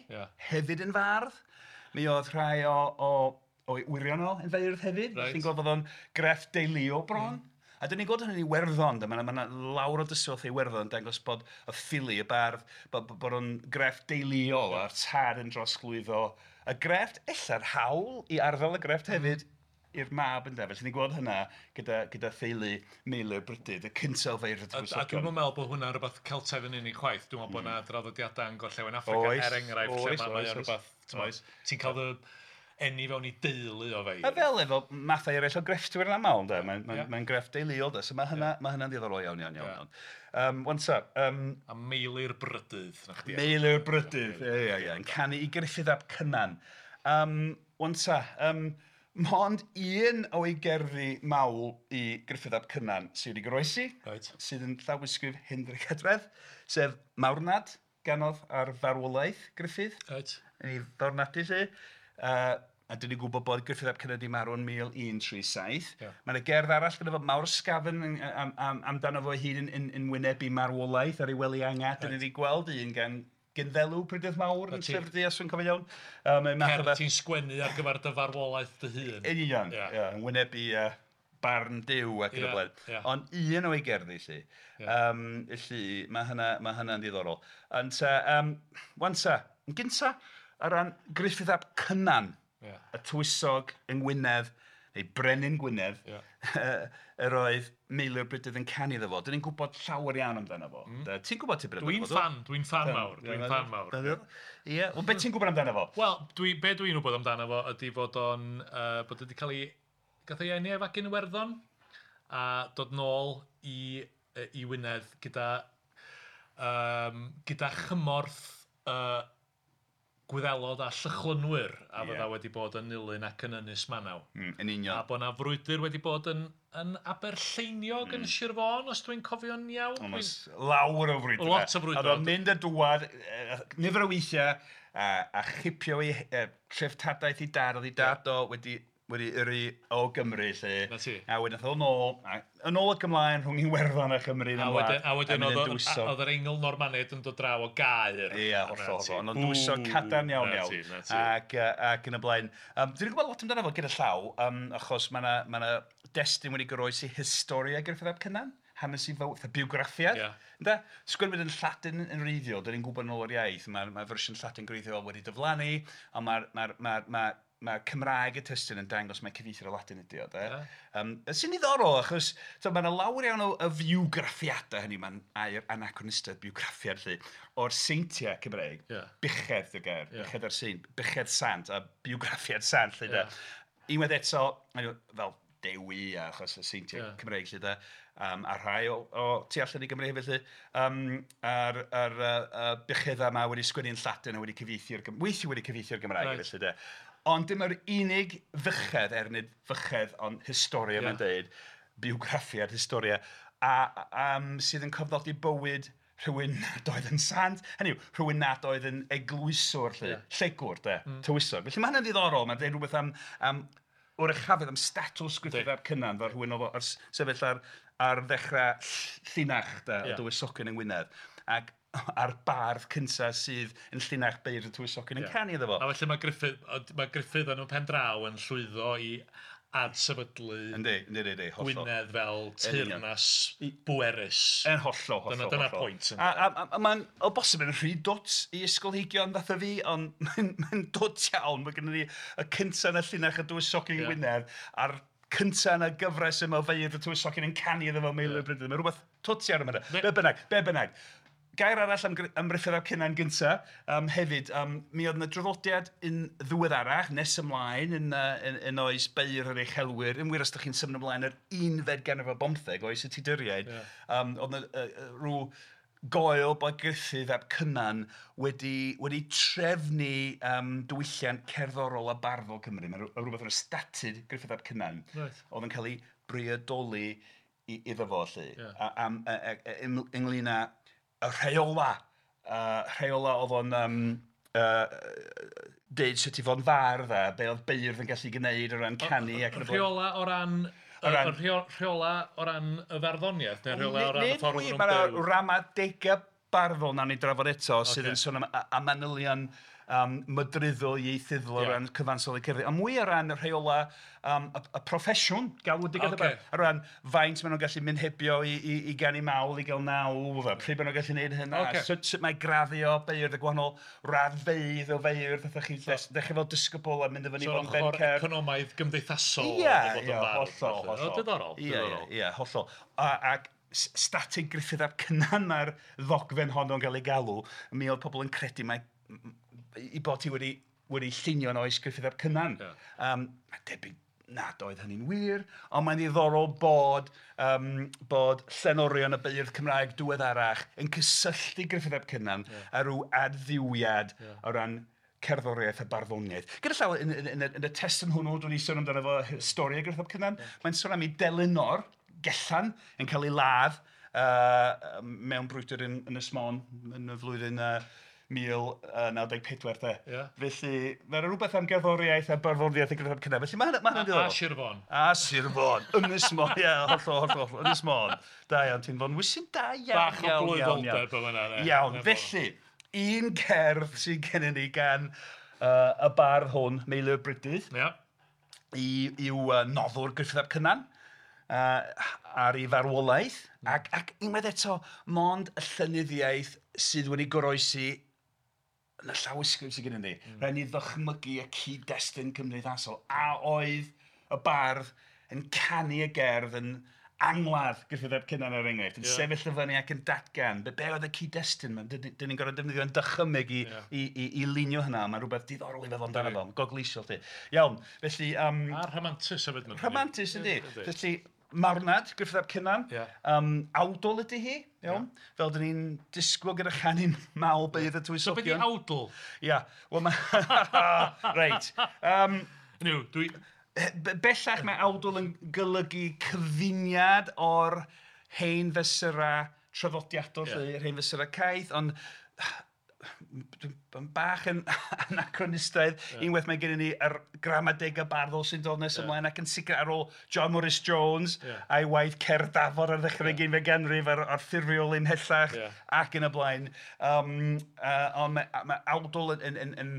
hefyd yn fardd. Mi oedd rhai o'i wyrion o yn feirdd hefyd. Right. Ti'n gweld bod o'n grefft deuluol bron. A dyn ni'n gweld hynny'n Iwerddon, mae yna lawr o dystiolaeth Iwerddon yn dangos bod y ffili, y bardd, bod o'n grefft deuluol a'r tad yn drosglwyddo y grefft, ella'r hawl i arddel y grefft hefyd i'r mab yn Felly ni'n gweld hynna gyda theulu Meilyr Brydydd, y cyntaf o feirdd y tywysogion. A dwi'n meddwl bod hwnna'n rhywbeth Celtaidd yn unig chwaith. Dwi'n meddwl bod yna draddodiadau yn Gorllewin Affrica, er enghraifft, lle mae o'n rhywbeth, ti'n cael dy eni fewn i deulu o feirdd. A fel efo mathau eraill o grefftwyr yn aml, mae'n grefft deuluol, so mae hynna'n ddiddorol iawn, iawn, iawn. Wan ta. A Meilyr Brydydd, na chdi. Meilyr Brydydd, ie, yn canu i Gruffydd ap Cynan. Wan ta, mond un o'i gerddi mawl i Gruffydd ap Cynan sydd wedi goroesi, sydd yn llawysgrif Hendrik Edredd, sef Marwnad, ganodd ar farwolaeth Gruffydd. Yn ei farwnadu lle. A dyn ni'n gwybod bod Gruffydd ap Cynan wedi marw yn 1137. Mae yna gerdd arall gyda fo Mawr Sgafn amdano fo ei hun yn wynebu marwolaeth ar ei wely angau. Dyn ni wedi gweld un gan Gynddelw Prydydd Mawr yn Llyfr Du, os dwi'n cofio iawn. Cerdd ti'n sgwennu ar gyfer dy farwolaeth dy hun. Yn union, yn wynebu barn Duw ac yn y blaen. Ond un o'i gerddi, lly. Felly, mae hynna'n ddiddorol. Ond, wan ta, yn gynta, o ran Gruffydd ap Cynan, y tywysog yng Ngwynedd, neu Brenin Gwynedd, yr oedd Meilyr Brydydd yn canu iddo fo. Dyn ni'n gwybod llawer iawn amdano fo. Ti'n gwybod tipyn amdano fo? Dwi'n fan mawr, dwi'n fan mawr. Ie, wel beth ti'n gwybod amdano fo? Wel, be dwi'n gwybod amdano fo ydy fod o'n, bod wedi cael ei, gath ei eni efo gyn Iwerddon, a dod nôl i Wynedd gyda chymorth Gwyddelod a Llychlynwyr a fydda wedi bod yn Nulyn ac yn Ynys Manaw. Yn union. A bod 'na frwydr wedi bod yn Aberlleiniog yn Sir Fôn, os dwi'n cofio'n iawn. Lawr o frwydr. Lot o frwydr. A oedd o'n mynd a dŵad nifer o weithiau a chipio ei treftadaeth ei dad, oedd ei dad o wedi yrru o Gymru, lle. A wedyn aeth o nôl, yn ôl ac ymlaen rhwng Iwerddon a Chymru. A wedyn oedd yr Eingl Normaniaid yn dod draw o Gaer. Ie, hollol. Ond o'n dwysog cadarn iawn iawn. Ac yn y blaen. Dwi'n gwybod lot amdano fo gyda llaw, achos mae yna destun wedi goroesi Historia Gruffydd ap Cynan. Hanes i fywyd, biwgraffiad. Sgwennwyd yn Lladin yn wreiddiol, dyn ni'n gwybod yn ôl o'r iaith, mae fersiwn Lladin gwreiddiol wedi diflannu, ond mae Cymraeg y testun yn dangos mae cyfieithu'r Latin ydi o, de. Sy'n ddiddorol, achos mae yna lawer iawn o fiwgraffiadau hynny, mae'n air anachronistaidd, biwgraffiad, lly, o'r seintiau Cymreig, buchedd y gair, buchedd ar saint, buchedd sant a biwgraffiad sant, lly, de. Unwaith eto, fel Dewi, achos y seintiau Cymreig, lly, de, a rhai o tu allan i Gymru hefyd, lly, a'r bucheddau yma wedi sgwennu yn Lladin a wedi cyfieithu'r weithiau wedi cyfieithu'r Gymraeg, felly, de. Ond dim yr unig fychedd, er nid fychedd, ond historia mae'n deud, biwgraffiad historia, sydd yn cofnodi bywyd rhywun nad oedd yn sant, hynny yw, rhywun nad oedd yn eglwyswr, lly, llegwr, de, tywysog. Felly mae hynny'n ddiddorol, mae'n deud rhywbeth am oruchafedd, am statws Gruffydd ap Cynan, fel rhywun oedd sefyll ar ddechrau llinach, de, y dywysogion yng Ngwynedd. Ac a'r bardd cyntaf sydd yn llinach beirdd y tywysogion yn canu iddo fo. A felly mae Gruffydd yn y pen draw yn llwyddo i adsefydlu Gwynedd fel teyrnas bwerus. Yn hollol, hollol. Dyna'r pwynt. A mae'n o bosib yn rhy dwt i ysgolheigion fatha fi, ond mae'n dwt iawn. Mae gennym ni y cyntaf yn y llinach y dywysogion yng Ngwynedd a'r cyntaf yn y gyfres yma o feirdd y tywysogion yn canu iddo fo Meilyr Brydydd. Mae rhywbeth twt iawn yma. Be bynnag. Gair arall am Gruffydd ap Cynan gynta, hefyd, mi oedd yna draddodiad yn ddiweddarach, nes ymlaen, yn oes beirdd yr uchelwyr, yn wir os ydych chi'n symud ymlaen yr 15 ganrif ar bymtheg, oes y Tuduriaid, oedd yna rhyw goel bod Gruffydd ap Cynan wedi trefnu diwylliant cerddorol a barddol Cymru. Mae rhywbeth yn y statud Gruffydd ap Cynan, oedd yn cael ei briodoli iddo fo, lly, ynglyn â y rheola oedd o'n deud sut i fod yn fardd a be oedd beirdd yn gallu gwneud o ran canu ac yn y blaen. Rheola o ran Y rheola o ran y farddoniaeth, neu rheola o ran y ffordd nhw'n byw? Mae'r ramadegau barddol nawn ni drafod eto sydd yn sôn am manylion mydryddol, ieithyddol o ran cyfansoddi cerddi, ond mwy o ran y rheola y proffesiwn, galwedigaeth okay. O ran faint maen nhw'n gallu mynd hebio i ganu mawl, i gael nawdd, a pryd maen nhw'n gallu gwneud hynna, okay. Sut mae graddio beirdd, y gwahanol raddfeydd o feirdd, fatha chi dechrau fel disgybl a mynd i fyny so bod yn bencerdd. So ochr economaidd gymdeithasol. Ie, hollol, hollol. Diddorol. Ie, hollol. Ac statig Gruffydd ap Cynan mae'r ddogfen honno'n cael ei galw, mi oedd pobl yn credu mae i bod ti wedi llunio yn oes Gruffydd ap Cynan. Yeah. Mae'n debyg nad oedd hynny'n wir, ond mae'n ddiddorol bod llenorion y beirdd Cymraeg diweddarach yn cysylltu Gruffydd ap Cynan a rhyw adfywiad o ran cerddoriaeth a barddoniaeth. Gyda llaw, yn y testun hwnnw, dwi'n ei sôn amdano fo stori o Gruffydd ap Cynan, mae'n sôn am ei delynor, Gellan, yn cael ei ladd mewn brwydr yn Ynys Môn yn y flwyddyn 1094 de. Yeah. Felly, mae'n rhywbeth am gerddoriaeth a barddoniaeth a Gruffydd ap Cynan. Felly mae hynny'n diddorol. A Sir Fôn. A Sir Fôn. Ynys Môn, ie, hollol, hollol. Ynys Môn. Da iawn, ti'n Fonwysyn, da iawn. Bach o blwyddolder o fyna. Iawn, felly, un cerdd sydd gennym ni gan y bardd hwn, Meilyr Brydydd, i'w noddwr Gruffydd ap Cynan, ar ei farwolaeth, ac unwaith eto, mond y llenyddiaeth sydd wedi goroesi yn y llawysgrif sydd gennym ni. Rhaid ni ddychmygu y cyd-destun cymdeithasol. A oedd y bardd yn canu y gerdd yn angladd Gruffydd ap Cynan er enghraifft, yn sefyll y fyny ac yn datgan. Be oedd y cyd-destun? Dyn ni'n gorfod defnyddio'n dychymyg i lunio hynna. Mae'n rhywbeth diddorol i feddwl amdano fo. Gogleisiol ti. Iawn, felly... A rhamantus hefyd. Rhamantus yndi. Felly, marwnad Gruffydd ap Cynan, awdl ydy hi, iawn, fel dyn ni'n disgwyl gyda chanu mawl beirdd y tywysogion. So beth ydi awdl? Ia, wel mae... Reit. Dwi... Bellach mae awdl yn golygu cyfuniad o'r hen fesurau traddodiadol, yr hen fesurau caeth, ond dwi'n bach yn anachronistaidd. Unwaith mae gennym ni yr gramadegau barddol sy'n dod nes ymlaen ac yn sicr ar ôl John Morris Jones a'i waith Cerdd Dafod ar ddechrau'r ugeinfed ganrif a'r ffurfiol ymhellach ac yn y blaen. Ond mae awdl yn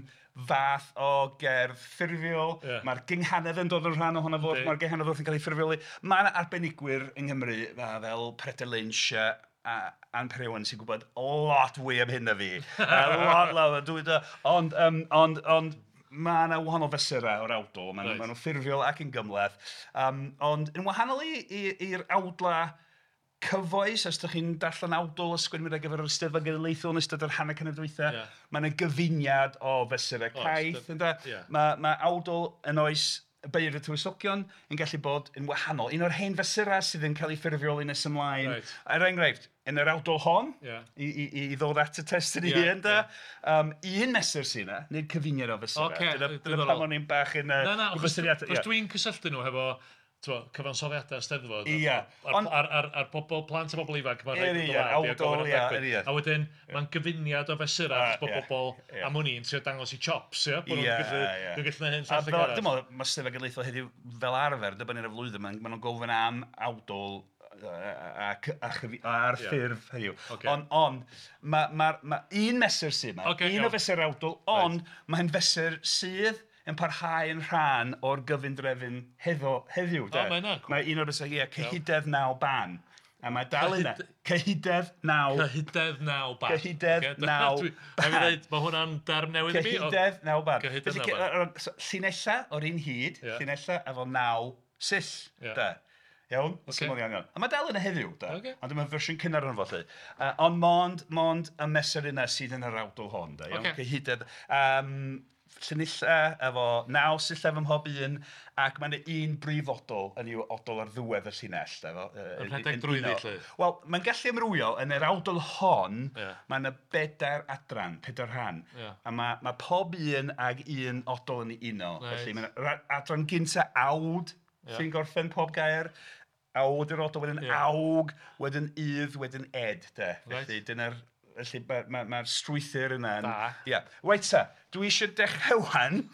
fath o gerdd ffurfiol. Mae'r gynghanedd yn dod yn rhan ohono fo, mae'r gynghanedd wrth yn cael ei ffurfioli. Mae yna arbenigwyr yng Nghymru fel Peredur Lynch a Ann Parry Owen sy'n gwybod lot fwy am hyn na fi. Lot, ond mae yna wahanol fesurau o'r awdl. Maen nhw'n ffurfiol ac yn gymhleth. Ond yn wahanol i'r awdla cyfoes, os ydych chi'n darllen awdl a sgwennu ar gyfer yr Eisteddfod Genedlaethol yn ystod yr hanner canrif dwytha, mae yna gyfuniad o fesurau caeth. Mae awdl yn oes beirdd y tywysogion yn gallu bod yn wahanol. Un o'r hen fesurau sydd yn cael ei ffurfioli nes ymlaen. Er enghraifft, yn yr awdl hon, i ddod at y testun ei hun, un mesur sydd yna, nid cyfuniad o fesurau. Dyna pam o'n i'n bach yn... Na, achos dwi'n cysylltu nhw hefo cyfansoddiadau Steddfod. A'r pobl, plant a bobl ifanc, mae'n rhaid yn dod a wedyn, mae'n gyfuniad o fesurau, achos bod bobl am hwn i'n trio dangos i chops, ia? Bod nhw'n gallu gwneud hyn llall ag arall. Dwi'n meddwl, mae Steddfod Genedlaethol heddiw fel arfer, dibynnu ar y flwyddyn, maen nhw'n gofyn am awdl a'r ffurf heddiw. Ond, mae un mesur sydd yma, un o fesur awdl, ond mae'n fesur sydd yn parhau yn rhan o'r gyfundrefn heddiw. Mae un o'r bethau, cyhydedd naw ban. A mae dal yna. Cyhydedd naw. Cyhydedd naw ban. Cyhydedd naw ban. Mae hwnna'n derm newydd i mi. Cyhydedd naw ban. Llinella o'r un hyd, llinella efo naw sill. Iawn? Syml iawn, iawn. A mae dal yna heddiw, da. Ond dyma fersiwn cynnar o'n fo, lly. Ond mond y mesur yna sydd yn yr awdl hon, da. Iawn? Cyhydedd. Llinella efo naw sillaf ym mhob un, ac mae yna un brif odl yn i'w odl ar ddiwedd y llinell. Yn rhedeg drwyddi, lly? Wel, mae'n gallu amrywio. Yn yr awdl hon, mae yna bedair adran, pedair rhan. A mae pob un ag un odl yn ei uno. Felly mae yna adran gynta awd sy'n gorffen pob gair. Awd yw'r odl, wedyn awg, wedyn ydd, wedyn ed. Felly dyna'r Felly mae'r ma strwythur yna. Da. Ia. Reit ta, dwi eisiau dechrau wan.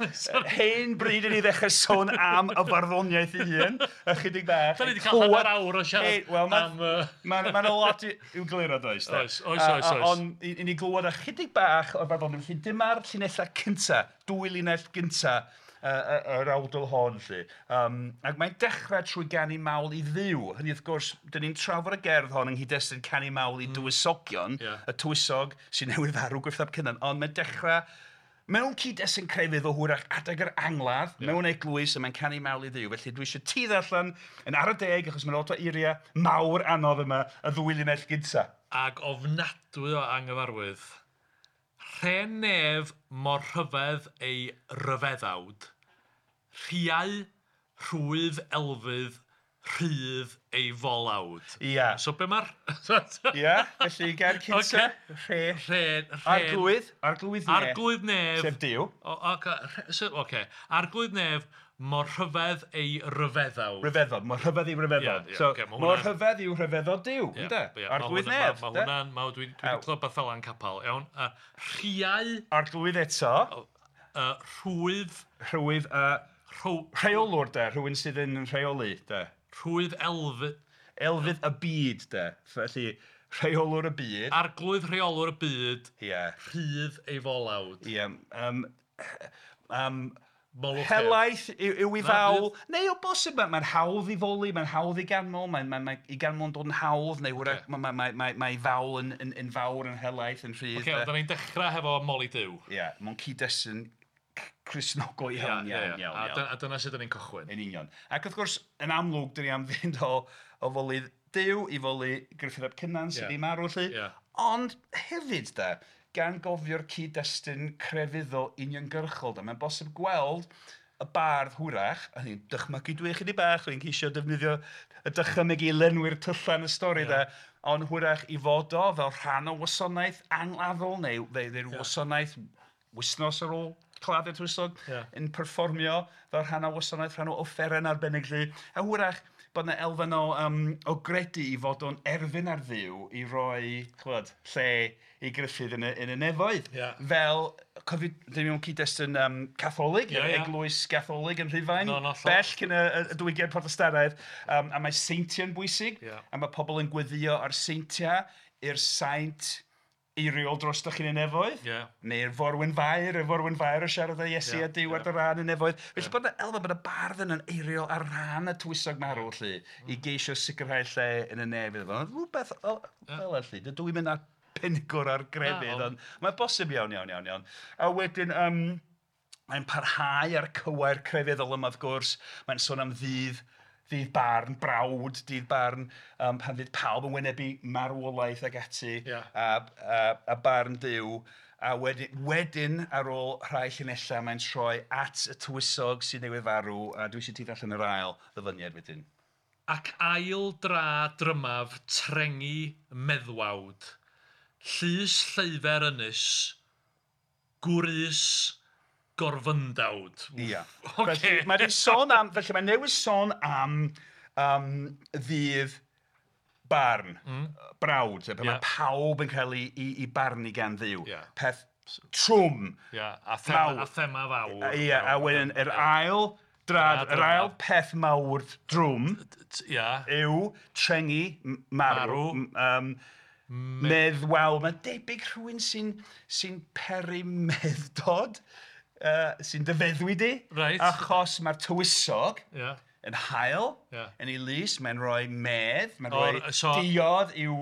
Hen bryd i ni ddechrau sôn am y farddoniaeth ei hun. Ychydig bach. Da ni wedi cael hanner awr o siarad wel, am... Mae'n ma lot i'w gliro, does? Oes, oes, oes. Ond i ni glywed ychydig bach o'r farddoniaeth. Felly dyma'r llinellau cynta, dwy linell gynta yr awdl hon, lly. Ac mae'n dechrau trwy ganu mawl i Dduw. Hynny, wrth gwrs, dyn ni'n trafod y gerdd hon yng nghyd-destun canu mawl i dywysogion, y tywysog sy'n newydd farw Gruffydd ap Cynan, ond mae'n dechrau mewn cyd-destun crefydd o hwyrach adeg yr angladd, mewn eglwys, a mae'n canu mawl i Dduw. Felly dwi eisiau ti ddarllen yn ar y deg, achos mae'n lot o eiriau mawr anodd yma, y ddwy linell gynta. Ac ofnadwy o anghyfarwydd. Rhen nef mor rhyfedd ei ryfeddawd, rhiau, rhwydd elfydd, rhydd ei folawd. Ia. So be mae'r... Ia, felly gair cynta, rhe. Rhen. Arglwydd, arglwydd nef. Arglwydd nef. Sef Duw. Oce. Arglwydd nef mor rhyfedd ei ryfeddawd. Ryfeddod, mor rhyfedd ei ryfeddod. Ie, so, ocê, ma' mor hwnna'n- rhyfedd yw rhyfeddod Duw, Ie, ynde? ie, Arglwydd ma' hwnna- nef. Ma' ynde? hwnna'n... Dwi wedi clywed beth fel yn capel, iawn. Rhiau, Arglwydd eto, rhwydd, rhwydd, rheolwr, de, rhywun sydd yn rheoli, de. Rhwydd elfydd. Elfydd y byd, de. Felly, rheolwr y byd. Arglwydd rheolwr y byd. Ie. Rhydd ei folawd. Ie. Molwch Helaeth yw ei Na, fawl, neu o bosib, mae'n hawdd i foli, mae'n hawdd i ganmol, mae'n i ganmol yn dod yn hawdd, neu hwyrach mae fawl yn fawr, yn helaeth, yn rhydd. Oce, ond da ni'n dechrau hefo moli Duw. Ie, mewn cyd-destun Cristnogol iawn, iawn, iawn. A dyna sut da ni'n cychwyn. Yn union. Ac wrth gwrs, yn amlwg, dyn ni am fynd o foli Duw i foli Gruffydd ap Cynan sydd wedi marw, lly. Ond hefyd, da, gan gofio'r cyd-destun crefyddol uniongyrchol, da, mae'n bosib gweld y bardd hwyrach, a ni'n dychmygu dwi chydig bach, dwi'n ceisio defnyddio y dychymyg i lenwi'r tyllau yn y stori, da, ond hwyrach i fod o fel rhan o wasanaeth angladdol, neu wasanaeth wythnos ar ôl claddu'r tywysog, yn perfformio fel rhan o wasanaeth, rhan o offeren arbennig, lly. A hwyrach bod yna elfen o gredu i fod o'n erfyn ar Dduw i roi, ch'mod, lle i Gruffydd yn y nefoedd. Fel, cofio, dyn ni mewn cyd-destun Catholig, eglwys Gatholig yn Rhufain, bell cyn y diwygiad Protestannaidd, a mae seintiau'n bwysig, a mae pobl yn gweddio ar seintiau i'r saint eiriol dros dy chi'n y nefoedd, neu'r forwyn fair, y forwyn fair o siarad â Iesu a Duw ar dy ran y nefoedd. Felly bod yna elfen, bod y bardd yna'n eiriol ar ran y tywysog marw, lly, i geisio sicrhau lle yn y nef iddo fo. Rhywbeth fel yna, lly. Dydw i'n mynd ar penigwr ar grefydd, ond mae'n bosib iawn, iawn, iawn, iawn. A wedyn, mae'n parhau ar cywair crefyddol yma, wrth gwrs. Mae'n sôn am ddydd barn, brawd, dydd barn, pan fydd pawb yn wynebu marwolaeth ac ati, a barn Duw. A wedyn, ar ôl rhai llinellau, mae'n troi at y tywysog sydd newydd farw, a dwi eisiau ti ddarllen yr ail ddyfyniad wedyn. Ac ail dra drymaf trengi meddwawd, llys lleufer ynys, gwrys gorfyndawd. Ia. Felly mae wedi sôn am, felly mae newydd sôn am ddydd barn, brawd, pan mae pawb yn cael ei barnu gan Dduw. Peth trwm. A thema fawr. Ia, a wedyn yr ail drad, yr ail peth mawr drwm yw trengi marw. Meddwawl. Mae'n debyg rhywun sy'n peri meddwdod. Sy'n dyfeddwi di, achos mae'r tywysog yn hael, yn ei lys, mae'n rhoi medd, mae'n rhoi diod i'w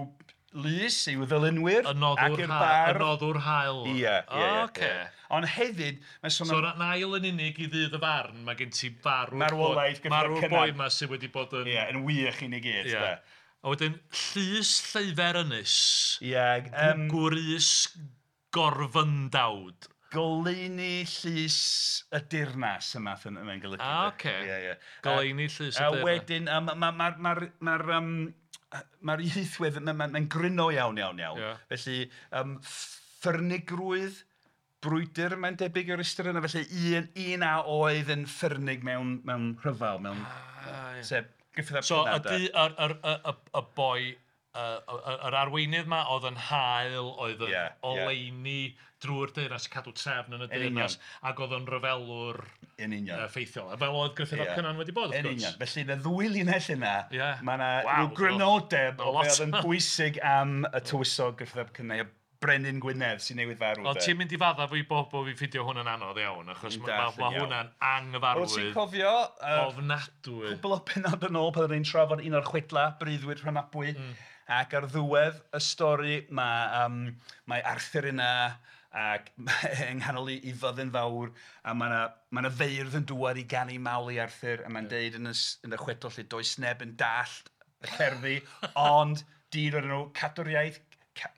lys, i'w ddylunwyr, ac i'r bardd. Y noddwr hael. Ie, ie. Ond hefyd, mae'n sôn am... So, yn ail yn unig i ddydd y farn, mae gen ti marwolaeth marw'r boi yma sydd wedi bod yn... Ie, yn wych i ni gyd. A wedyn, llys lleufer ynys, gwrys gorfyndawd. Goleuni llys y dirnas yma mae'n golygu. Oce. Goleuni llys y dirnas. A wedyn, mae'r ieithwedd, mae'n gryno iawn, iawn, iawn. Felly, ffyrnigrwydd, brwydr, mae'n debyg o'r ystyr yna. Felly, un a oedd yn ffyrnig mewn rhyfel, mewn... Sef, Gruffydd ap So, Cynan. y boi yr arweinydd 'ma oedd yn hael, oedd yn oleuni drwy'r deyrnas, cadw trefn yn y deyrnas, ac oedd o'n ryfelwr effeithiol. Fel oedd Gruffudd ap Cynan wedi bod, wrth gwrs. Yn union. Felly, yn y ddwy linell yna, mae yna rhyw grynodeb o beth oedd yn bwysig am y tywysog Gruffudd ap Cynan, Brenin Gwynedd sy'n newydd farw. Ond ti'n mynd i faddau fi bob bo fi ffindio hwn yn anodd iawn, achos mae hwnna'n anghyfarwydd. Wyt ti'n cofio ofnadwy. Cwbl o pennod yn ôl pan oedden ni'n trafod un o'r chwedla, Breuddwyd Rhonabwy, ac ar ddiwedd y stori mae Arthur yna ac yng nghanol ei fyddin fawr, a mae yna feirdd yn dŵad i ganu mawl i Arthur, a mae'n deud yn y chwedl lle does neb yn dallt y cerddi, ond dyn o'r enw Cadwriaeth.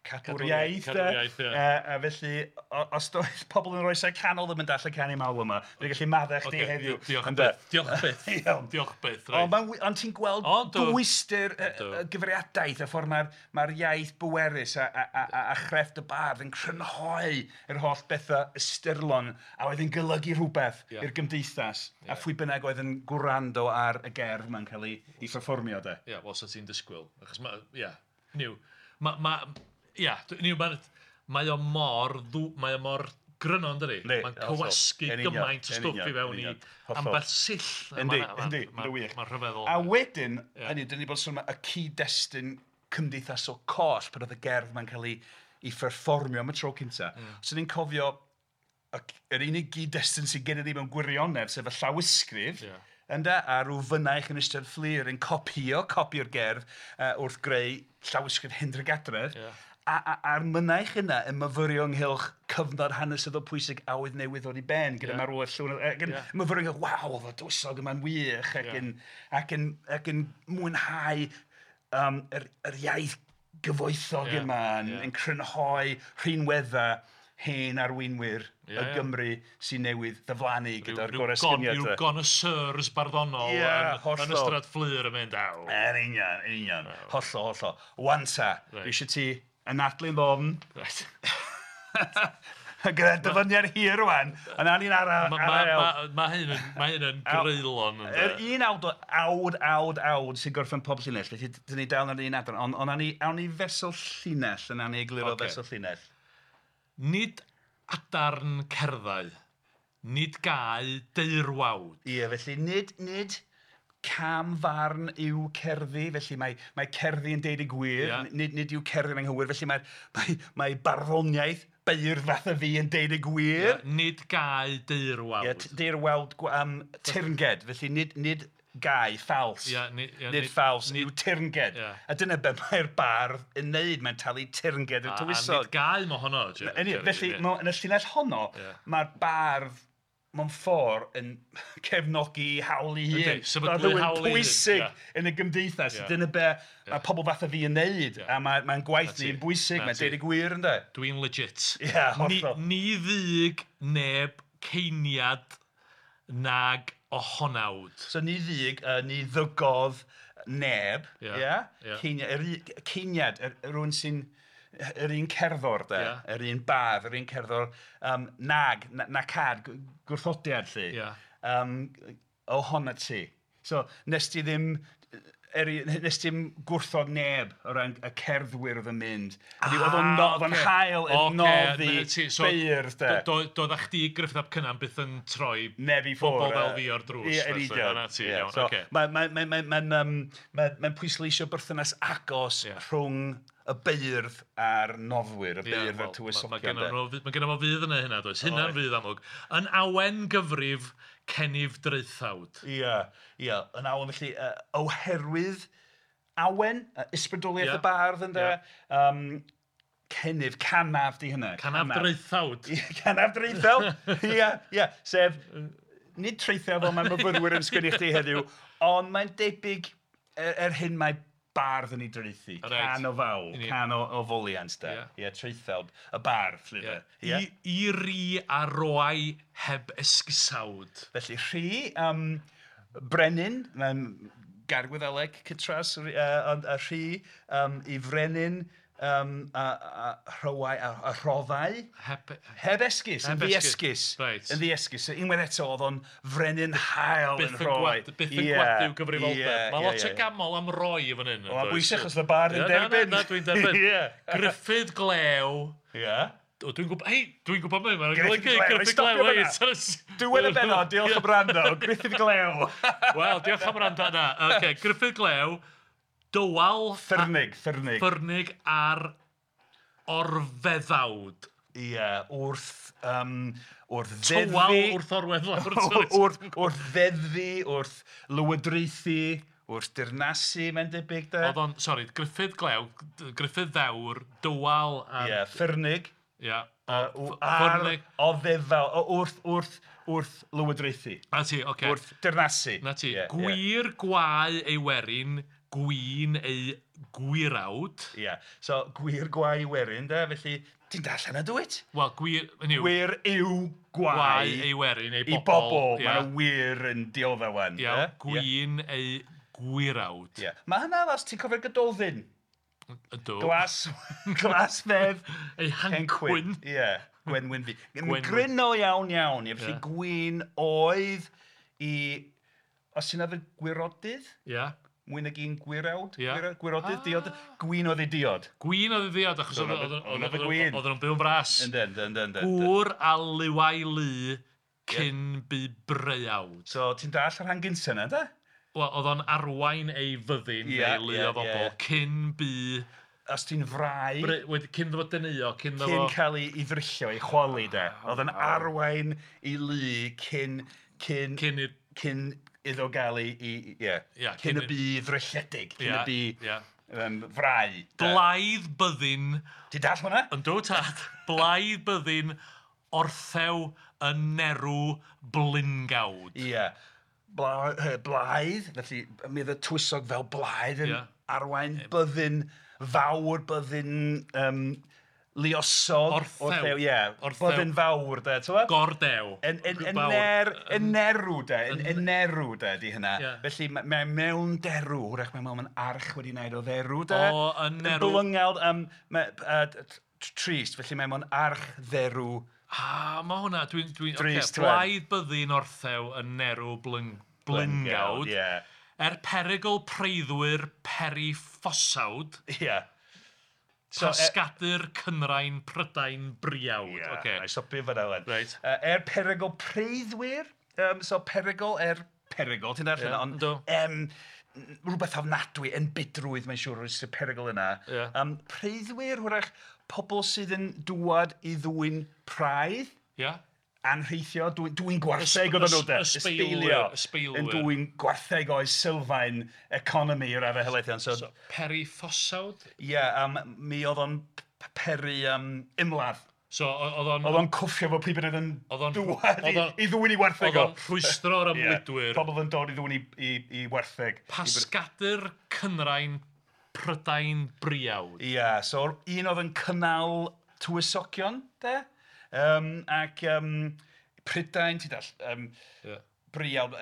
Cadwriaeth, a felly, os doedd pobl yn yr oesau canol ddim yn dallt y canu mawl yma, dwi'n gallu maddau chdi heddiw. Diolch byth, diolch byth, diolch byth. Ond ti'n gweld dwyster y gyfriadaeth, y ffordd mae'r iaith bwerus a chrefft y bardd yn crynhoi yr holl bethau ystyrlon a oedd yn golygu rhywbeth i'r gymdeithas, a phwy bynnag oedd yn gwrando ar y gerdd yma'n cael ei pherfformio. Ie, wel, 'sa ti'n disgwyl, achos mae, ie, niw, mae o mor gryno, yndydi? Mae'n cywasgu gymaint o stwff i fewn i ambell sill. Yndi, yndi, yn wych. Mae'n rhyfeddol. A wedyn, hynny, dyn ni bod sôn am y cyd-destun cymdeithasol coll pan oedd y gerdd ma'n cael ei pherfformio am y tro cynta. So ni'n cofio yr unig gyd-destun sydd gennym ni mewn gwirionedd, sef y llawysgrif, ynde, a rhyw fynaich yn Ystrad Fflur yn copio'r gerdd wrth greu llawysgrif Hendra Gadredd. A'r mynaich yna yn myfyrio ynghylch cyfnod hanesyddol pwysig a oedd newydd ddod i ben gyda marwolaeth Llywelyn, ac yn myfyrio ynghylch, waw, oedd y tywysog yma'n wych, ac yn mwynhau yr iaith gyfoethog yma, yn crynhoi rhinweddau hen arweinwyr y Gymru sy'n newydd ddiflannu gyda'r goresgyniad. Rhyw connoisseurs barddonol yn Ystrad Fflur yn mynd, aw. Yn union, yn union. Hollol, hollol. Wan ta, dwi eisiau ti anadlu'n ddofn. Gyda dyfyniad hir rwan, ond awn ni'n ara. Mae hyn yn greulon. Yr un awd, awd, awd sy'n gorffen pob llinell, felly dyn ni dal yn yr un adran, ond awn ni fesul llinell, yn awn ni egluro fesul llinell. Nid adarn cerddau, nid gau deirwawd. Ie, felly nid camfarn yw cerddi, felly mae cerddi yn deud y gwir, nid yw cerddi'n anghywir, felly mae barddoniaeth beirdd fath a fi yn deud y gwir. Nid gau deirwawd. Ie, deirwawd teyrnged, felly nid gau, ffals. Nid ffals yw teyrnged. A dyna be mae'r bardd yn neud, mae'n talu teyrnged i'r tywysog. A nid gau mo honno. Felly, yn y llinell honno, mae'r bardd mewn ffordd yn cefnogi hawl ei hun. Sefydlu hawl ei hun. Pwysig yn y gymdeithas. Dyna be mae pobl fath a fi yn neud. A mae'n gwaith ni yn bwysig, mae'n deud y gwir, ynde? Dwi'n legit. Ie, hollol. Ni ddug neb ceiniad nag ohonawd. So ni ddug, ni ddygodd neb, ie? Ceiniad, rhywun sy'n yr un cerddor, de, yr un bardd, yr un cerddor, nag, nacad, gwrthodiad, lly, ohona ti. So, nes ti ddim nes ti'm gwrthod neb o ran y cerddwyr oedd yn mynd. Oedd o'n hael yn noddi beirdd, de. Doedd chdi Gruffudd ap Cynan byth yn troi neb i ffwrdd bobl fel fi o'r drws. Ie, yn union. Mae'n pwysleisio berthynas agos rhwng y beirdd a'r noddwyr, y beirdd a'r tywysogion. Mae gennym fo fydd yna hynna, does? Hynna'n fydd amlwg. Yn awen gyfrif, cenif draethawd. Ie, ie. Yn awen felly, oherwydd awen, ysbrydoliaeth y bardd ynde, cenif, canaf di hynna. Canaf draethawd. Canaf draethawd, ie, ie. Sef, nid traethawd fel mae myfyrwyr yn sgwennu chdi heddiw, ond mae'n debyg er hyn mae bardd yn ei draethu, can o fawl, can o foliant, de. Ie, traethawd, y bardd, lly, de. I ri a roai heb esgusawd. Felly, rhi, brenin, mae'n gair Gwyddeleg, cytras, ond a rhi, i frenin, A rhywau, a rhoddau. Heb esgus, yn ddiesgus. Reit. Yn ddiesgus. So, unwaith eto, oedd o'n frenin hael yn rhoi. Byth yn gwadu gyfrifoldeb. Mae lot o gamol am roi i fan hyn. Mae'n bwysig achos y bardd yn derbyn. Na, dwi'n derbyn. Gruffydd Glew. Ie. Dwi'n gwybod, hei, dwi'n gwybod mwy, mae'n golygu Gruffydd Glew. Diwedd y bennod, diolch am wrando, Gruffydd Glew. Wel, diolch am wrando yna. Okay, Gruffydd Glew, dywal... Ffyrnig. Ffyrnig ar orfeddawd. Ie, wrth ddeddfu... Tywal wrth orwedd lawr. Wrth ddeddfu, wrth lywodraethu, wrth dirnasu, mae'n debyg de. Oedd o'n, sori, Gruffydd Glew, Gruffydd Ddewr, dywal ar... Ie, ffyrnig. Ie. Ar oddefal, wrth lywodraethu. Na ti, oce. Wrth dirnasu. Na ti. Gwir gwae ei werin, gwyn ei gwirawd. Ie. So, gwir gwae ei werin, de, felly, ti'n darllen y dwyt? Wel, gwir, hynny yw... Gwir yw gwae ei werin, ei bobl. I bobl, Ie. Mae'n wir yn dioddef wan. Ie, gwyn ei gwirawd. Ie. Mae hynna, os ti'n cofio'r Gododdin. Ydw. Glas fedd. Ei hancwyn. Ie, gwenwyn fi. Gryno iawn iawn. Ie, felly gwyn oedd i... Os ti'n arfer gwirodydd? Ie. Mwy nag un gwirawd? Gwirodydd, diod. Gwyn oedd ei diod. Gwyn oedd ei diod, achos oedd nhw'n byw'n fras. Yndyn. Gŵr a liwau lu cyn bu breuawd. So, ti'n dall yr rhan gynta yna, de? Wel, oedd o'n arwain ei fyddin neu lu o bobl cyn bu... Os ti'n frau... Cyn ddod deneuo, cyn ddod... Cyn cael ei ddryllio, ei chwalu, de. Oedd o'n arwain ei lu cyn... Cyn iddo gael ei... Ie. Cyn y bu ddrylledig. Cyn y bu frau. Blaidd byddin... Ti'n dall hwnna? Yndw, tad. Blaidd byddin orthew yn nerw blingawd. Ie. Blaidd, felly mi oedd y tywysog fel blaidd yn arwain byddin fawr, byddin luosog. Orthew. Ie, byddin fawr, de, ti'n gwbod? Gordew. Yn nerw, de, yn nerw, de, di hynna. Felly mae mewn derw, hwrach mae mewn arch wedi wneud o dderw, de. O, yn nerw. Blyngawd, trist, felly mae mewn arch dderw. Ah, mae hwnna, dwi'n... Okay, blaidd byddin orthew yn nerw blyngawd. Yeah. Er perygl preiddwyr periffosawd. Ie. Yeah. So, Pasgadur Cynrain Prydain Briawd. Ie, okay. Na i stopio fan'na wan. Right. Er perygl preiddwyr, so perygl er perygl, ti'n darllen, ond rhywbeth ofnadwy, enbydrwydd, mae'n siŵr, o'r perygl yna. Yeah. Preiddwyr, hwrach, pobl sydd yn dŵad i ddwyn praidd. Yeah. Anrheithio, dwyn gwartheg oedden nhw, de. Ysbeilio. Yn dwyn gwartheg o'i sylfaen economi i'r raddau helaeth iawn. So, periffosawd? Ie, yeah, mi oedd o'n peri ymladd. So, oedd o'n... Oedd o'n cwffio fo pryd bynnag yn dŵad i ddwyn i wartheg o. Oedd o'n rhwystro'r ymlidwyr. Pobl yn dod i ddwyn i wartheg. Pasgadur Cynrain Prydain Briawd. Ie, yeah, so un oedd yn cynnal tywysogion, de? Ac Prydain, ti'n dall, Briawd,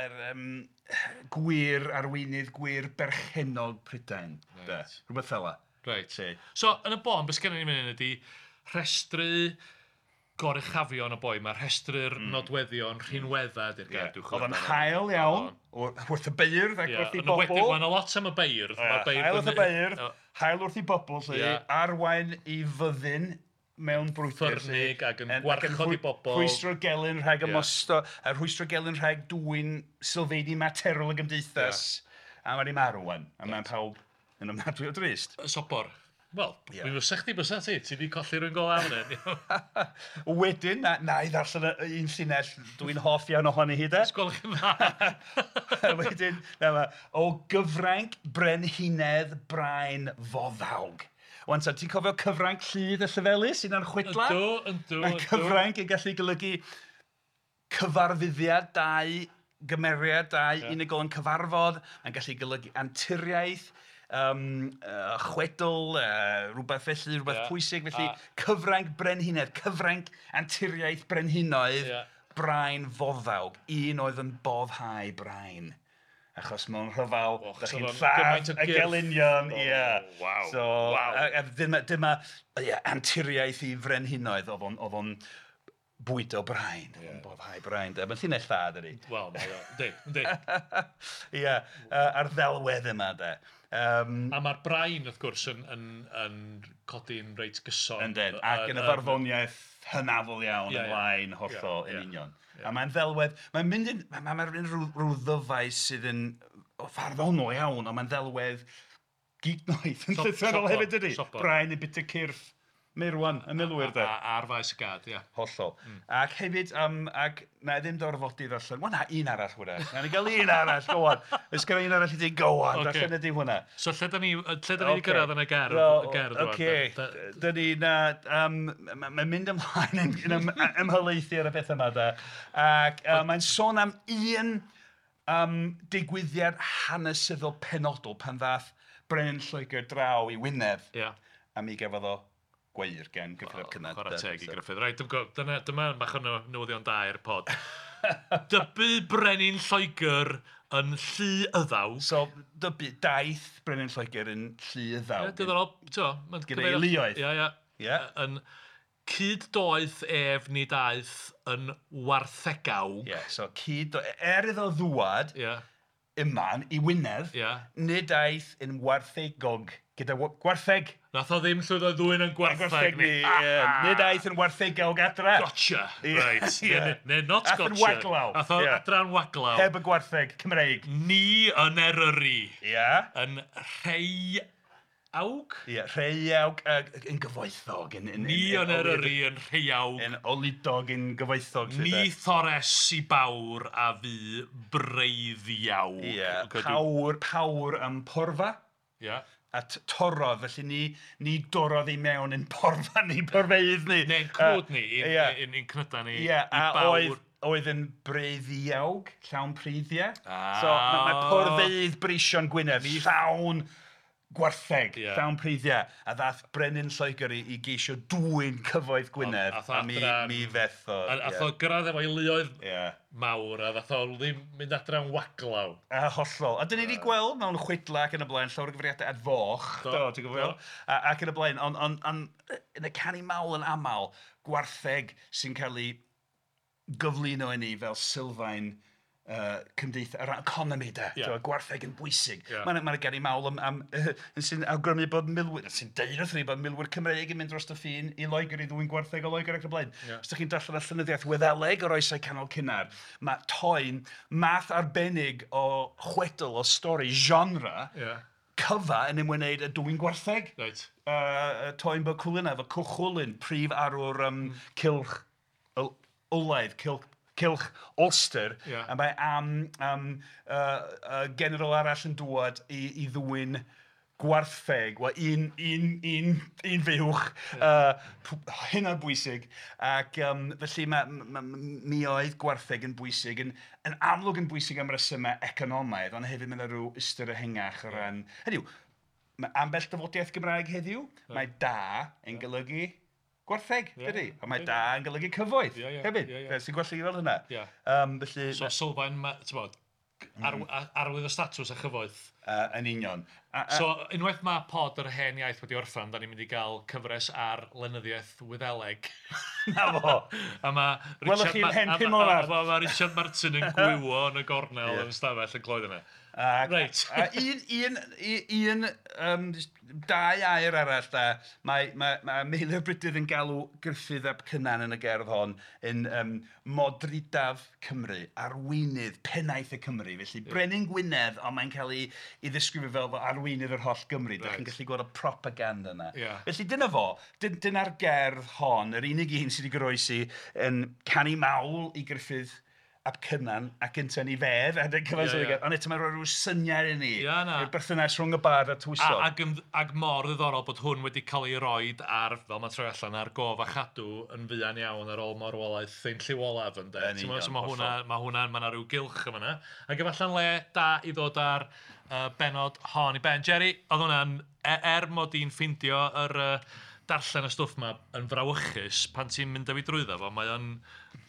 gwir arweinydd, gwir berchennog Prydain. Right. Rhywbeth fel 'na. Right. So, yn y bôn, beth sgennym ni mynd ydy rhestru goruchafion y boi, mae rhestru'r nodweddion rhinweddau di'r gair dwi'n chwilio. Oedd o'n hael iawn, wrth y beirdd ac wrth i bobl. Mae yna lot am y beirdd. Hael wrth y beirdd, hael wrth i bobl, arwain i fyddin mewn brwydr. Ffyrnig ac yn gwarchod i bobl. Rhwystro gelyn rhag ymosto, a rhwystro gelyn rhag dwyn sylfeini materol y gymdeithas. A mae 'di marw wan, a mae'n pawb yn ofnadwy o drist. Sobor. Wel, mi fysa chdi bysa ti, ti 'di colli rhywun go lawn hyn. Wedyn, na i ddarllen un llinell dwi'n hoff iawn ohoni hi de. Gwelwch yn dda. Wedyn, na, o gyfranc brenhinedd brain foddawg. Wan ta, ti'n cofio cyfranc Lludd y Llefelys, un o'r chwedla? Yndw, yndw. Mae cyfranc yn gallu golygu cyfarfyddiad dau gymeriad, dau unigol yn cyfarfod. Mae'n gallu golygu anturiaeth, chwedl, rhywbeth felly, rhywbeth pwysig. Felly, cyfranc brenhinedd, cyfranc anturiaeth brenhinoedd, brain foddawg. Un oedd yn boddhau brain. Achos mewn rhyfel, da chi'n lladd y gelynion. Ie. Wow. So, a dyma anturiaeth i frenhinoedd, oedd o'n bwydo brain, oedd o'n boddhau brain. Mae'n llinell dda, dydi? Wel, mae o, yndi, yndi. Ie, a'r ddelwedd yma, de. A mae'r brain, wrth gwrs, yn codi'n reit gyson. Yndyn, ac yn y farddoniaeth hynafol iawn ymlaen, hollol, yn union. A mae'n ddelwedd, mae'n mynd yn, mae'n rhyw ddyfais sydd yn farddonol iawn, ond mae'n ddelwedd gignoeth yn llythrennol hefyd, dydi? Brain yn bita cyrff meirwan, y milwyr, de. Ar faes y gad, ie. Hollol. Ac hefyd, ac na i ddim dorfodi ddarllen, wel na, un arall hwnna. Na ni gael un arall, go on. Oes gen i un arall i ti, go on, darllen ydi hwnna. So lle da ni wedi gyrraedd yn y gerdd? Oce, da ni, na, mae'n mynd ymlaen yn ymhelaethu ar y beth yma, da. Ac mae'n sôn am un digwyddiad hanesyddol penodol pan ddath Brenin Lloegr draw i Wynedd. A mi gafodd o gweir gen Gruffydd ap Cynan. Chwarae teg i Gruffydd. Reit, dyma bach o newyddion da i'r pod. Dybu Brenin Lloegr yn Llu Yddaw. So, dybu, daeth Brenin Lloegr yn Llu Yddaw. Ie, diddorol, ti'n Gyda'i luoedd. Ie, ie. Yn cyd-doeth ef nid aeth yn warthegawg. Ie, so cyd-doeth, iddo ddwad yma i Wynedd, nid aeth yn warthegog. Gyda gwartheg. Nath o ddim llwyddo ddwyn yn gwartheg ni. Nid aeth yn warthegawg adra. Gotcha. Right. Neu not gotcha. Ath yn waglaw. Ath o adra'n waglaw. Heb y gwartheg Cymreig. Ni yn Eryri. Ie. Yn rheiawg. Ie, rheiawg yn gyfoethog. Ni yn Eryri yn rheiawg. Yn oludog yn gyfoethog. Ni thores i bawr a fu breiddiawg. Ie, pawr am porfa. Ie. A torrodd, felly ni dorrodd i mewn yn porfa ni, porfeydd ni. Neu'n cnwd ni, i'n cnyda ni, i bawr. Oedd yn breiddiawg, llawn preiddiau. So mae porfeydd breision Gwynedd, llawn gwartheg, llawn preiddiau. A ddath Brenin Lloegr i geisio dwyn cyfoeth Gwynedd, a mi fethodd. A o gyrraedd efo'i luoedd mawr, a ddath o ddim mynd adra'n waglaw. A hollol. A dyn ni wedi gweld mewn chwedla ac yn y blaen, llawer o gyfeiriadau at foch, do, ti'n gwybod? Ac yn y blaen, ond yn y canu mawl yn aml, gwartheg sy'n cael ei gyflwyno i ni fel sylfaen cymdeithas, yr economi de, gwartheg yn bwysig. Mae'n ganu mawl am sy'n awgrymu bod milwyr, sy'n deud wrth ni bod milwyr Cymreig yn mynd dros y ffin i Loegr i ddwyn gwartheg o Loegr ac yn y blaen. Os ydych chi'n darllen y llenyddiaeth Wyddeleg o'r oesau canol cynnar, mae toen, math arbennig o chwedl, o stori, genre, cyfa yn ymwneud â dwyn gwartheg. Toen bod Cwlina, efo Cwchwlyn, prif arwr cylch olaidd, cylch Ulster, a mae am general arall yn dŵad i ddwyn gwartheg, wel, un fuwch, hynod bwysig, ac felly mi oedd gwartheg yn bwysig, yn amlwg yn bwysig am resymau economaidd, ond hefyd mae'n rhyw ystyr ehangach o ran... Hynny yw, mae ambell dafodiaeth Gymraeg heddiw, mae da yn golygu gwartheg, dydy? A mae da yn golygu cyfoeth hefyd. Sy'n gwella i fel hynna. Felly, so sylfaen, ti'n bod, arwydd o statws a chyfoeth. Yn union. So, unwaith mae pod yr hen iaith wedi orffan, da ni'n mynd i gael cyfres ar lenyddiaeth Wyddeleg. Na fo! A mae Welwch chi'n hen 5 mlynedd. Mae Richard Martin yn gwywo yn y gornel yn stafell yn clywed yna. Reit. Dau air arall da, mae Meilir Brydydd yn galw Gruffydd ap Cynan yn y gerdd hon yn modrydaf Cymru, arweinydd, pennaeth y Cymru. Felly Brenin Gwynedd, ond mae'n cael ei ddisgrifio fel arweinydd yr holl Gymru. Dach chi'n gallu gweld y propaganda yna. Felly dyna fo, dyna'r gerdd hon, yr unig un sydd wedi goroesi yn canu mawl i Gruffydd ap Cynan ac ynte'n ei fedd, ond eto mae'n rhoi rhyw syniad i ni, i'r berthynas rhwng y bardd a tywysog. Ac mor ddiddorol bod hwn wedi cael ei roid ar, fel mae'n troi allan, ar gof a chadw yn fuan iawn ar ôl marwolaeth ein Llyw Olaf, ynde. So mae hwnna, mae yna rhyw gylch yma yna. Ac efalla'n le da i ddod ar benod hon i ben. Jerry, oedd hwnna'n, mod i'n ffindio yr darllen y stwff 'ma yn frawychus, pan ti'n mynd â fi drwyddo fo, mae o'n...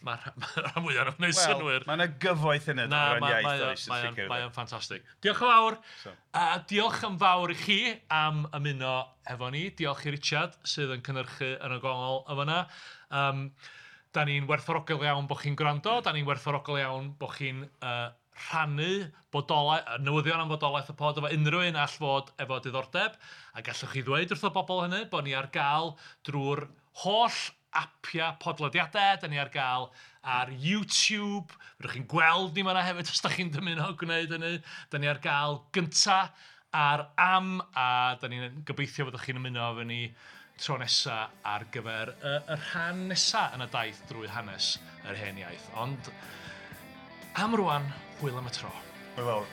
Mae'r rhan fwyaf o'n gwneud synnwyr. Mae yna gyfoeth yn y Na, ran mae iaith, mae o- oes, yn mae o'n sicr. mae o'n ffantastig. Diolch yn fawr. So. A diolch yn fawr i chi am ymuno efo ni. Diolch i Richard sydd yn cynhyrchu yn y gongol y fyna. Da ni'n werthfawrogol iawn bod chi'n gwrando. Da ni'n werthfawrogol iawn bod chi'n rhannu newyddion am fodolaeth y pod efo unrhyw un all fod efo diddordeb. A gallwch chi ddweud wrth y bobl hynny bod ni ar gael drwy'r holl apia podlediadau. Da ni ar gael ar YouTube. Fedrwch chi'n gweld ni fan'na hefyd os da chi'n dymuno gwneud hynny. Da ni ar gael gynta ar am, a da ni'n gobeithio fyddwch chi'n ymuno efo ni tro nesa ar gyfer y rhan nesa yn y daith drwy hanes yr hen iaith. Ond am rwan, hwyl am y tro. Hwyl fawr.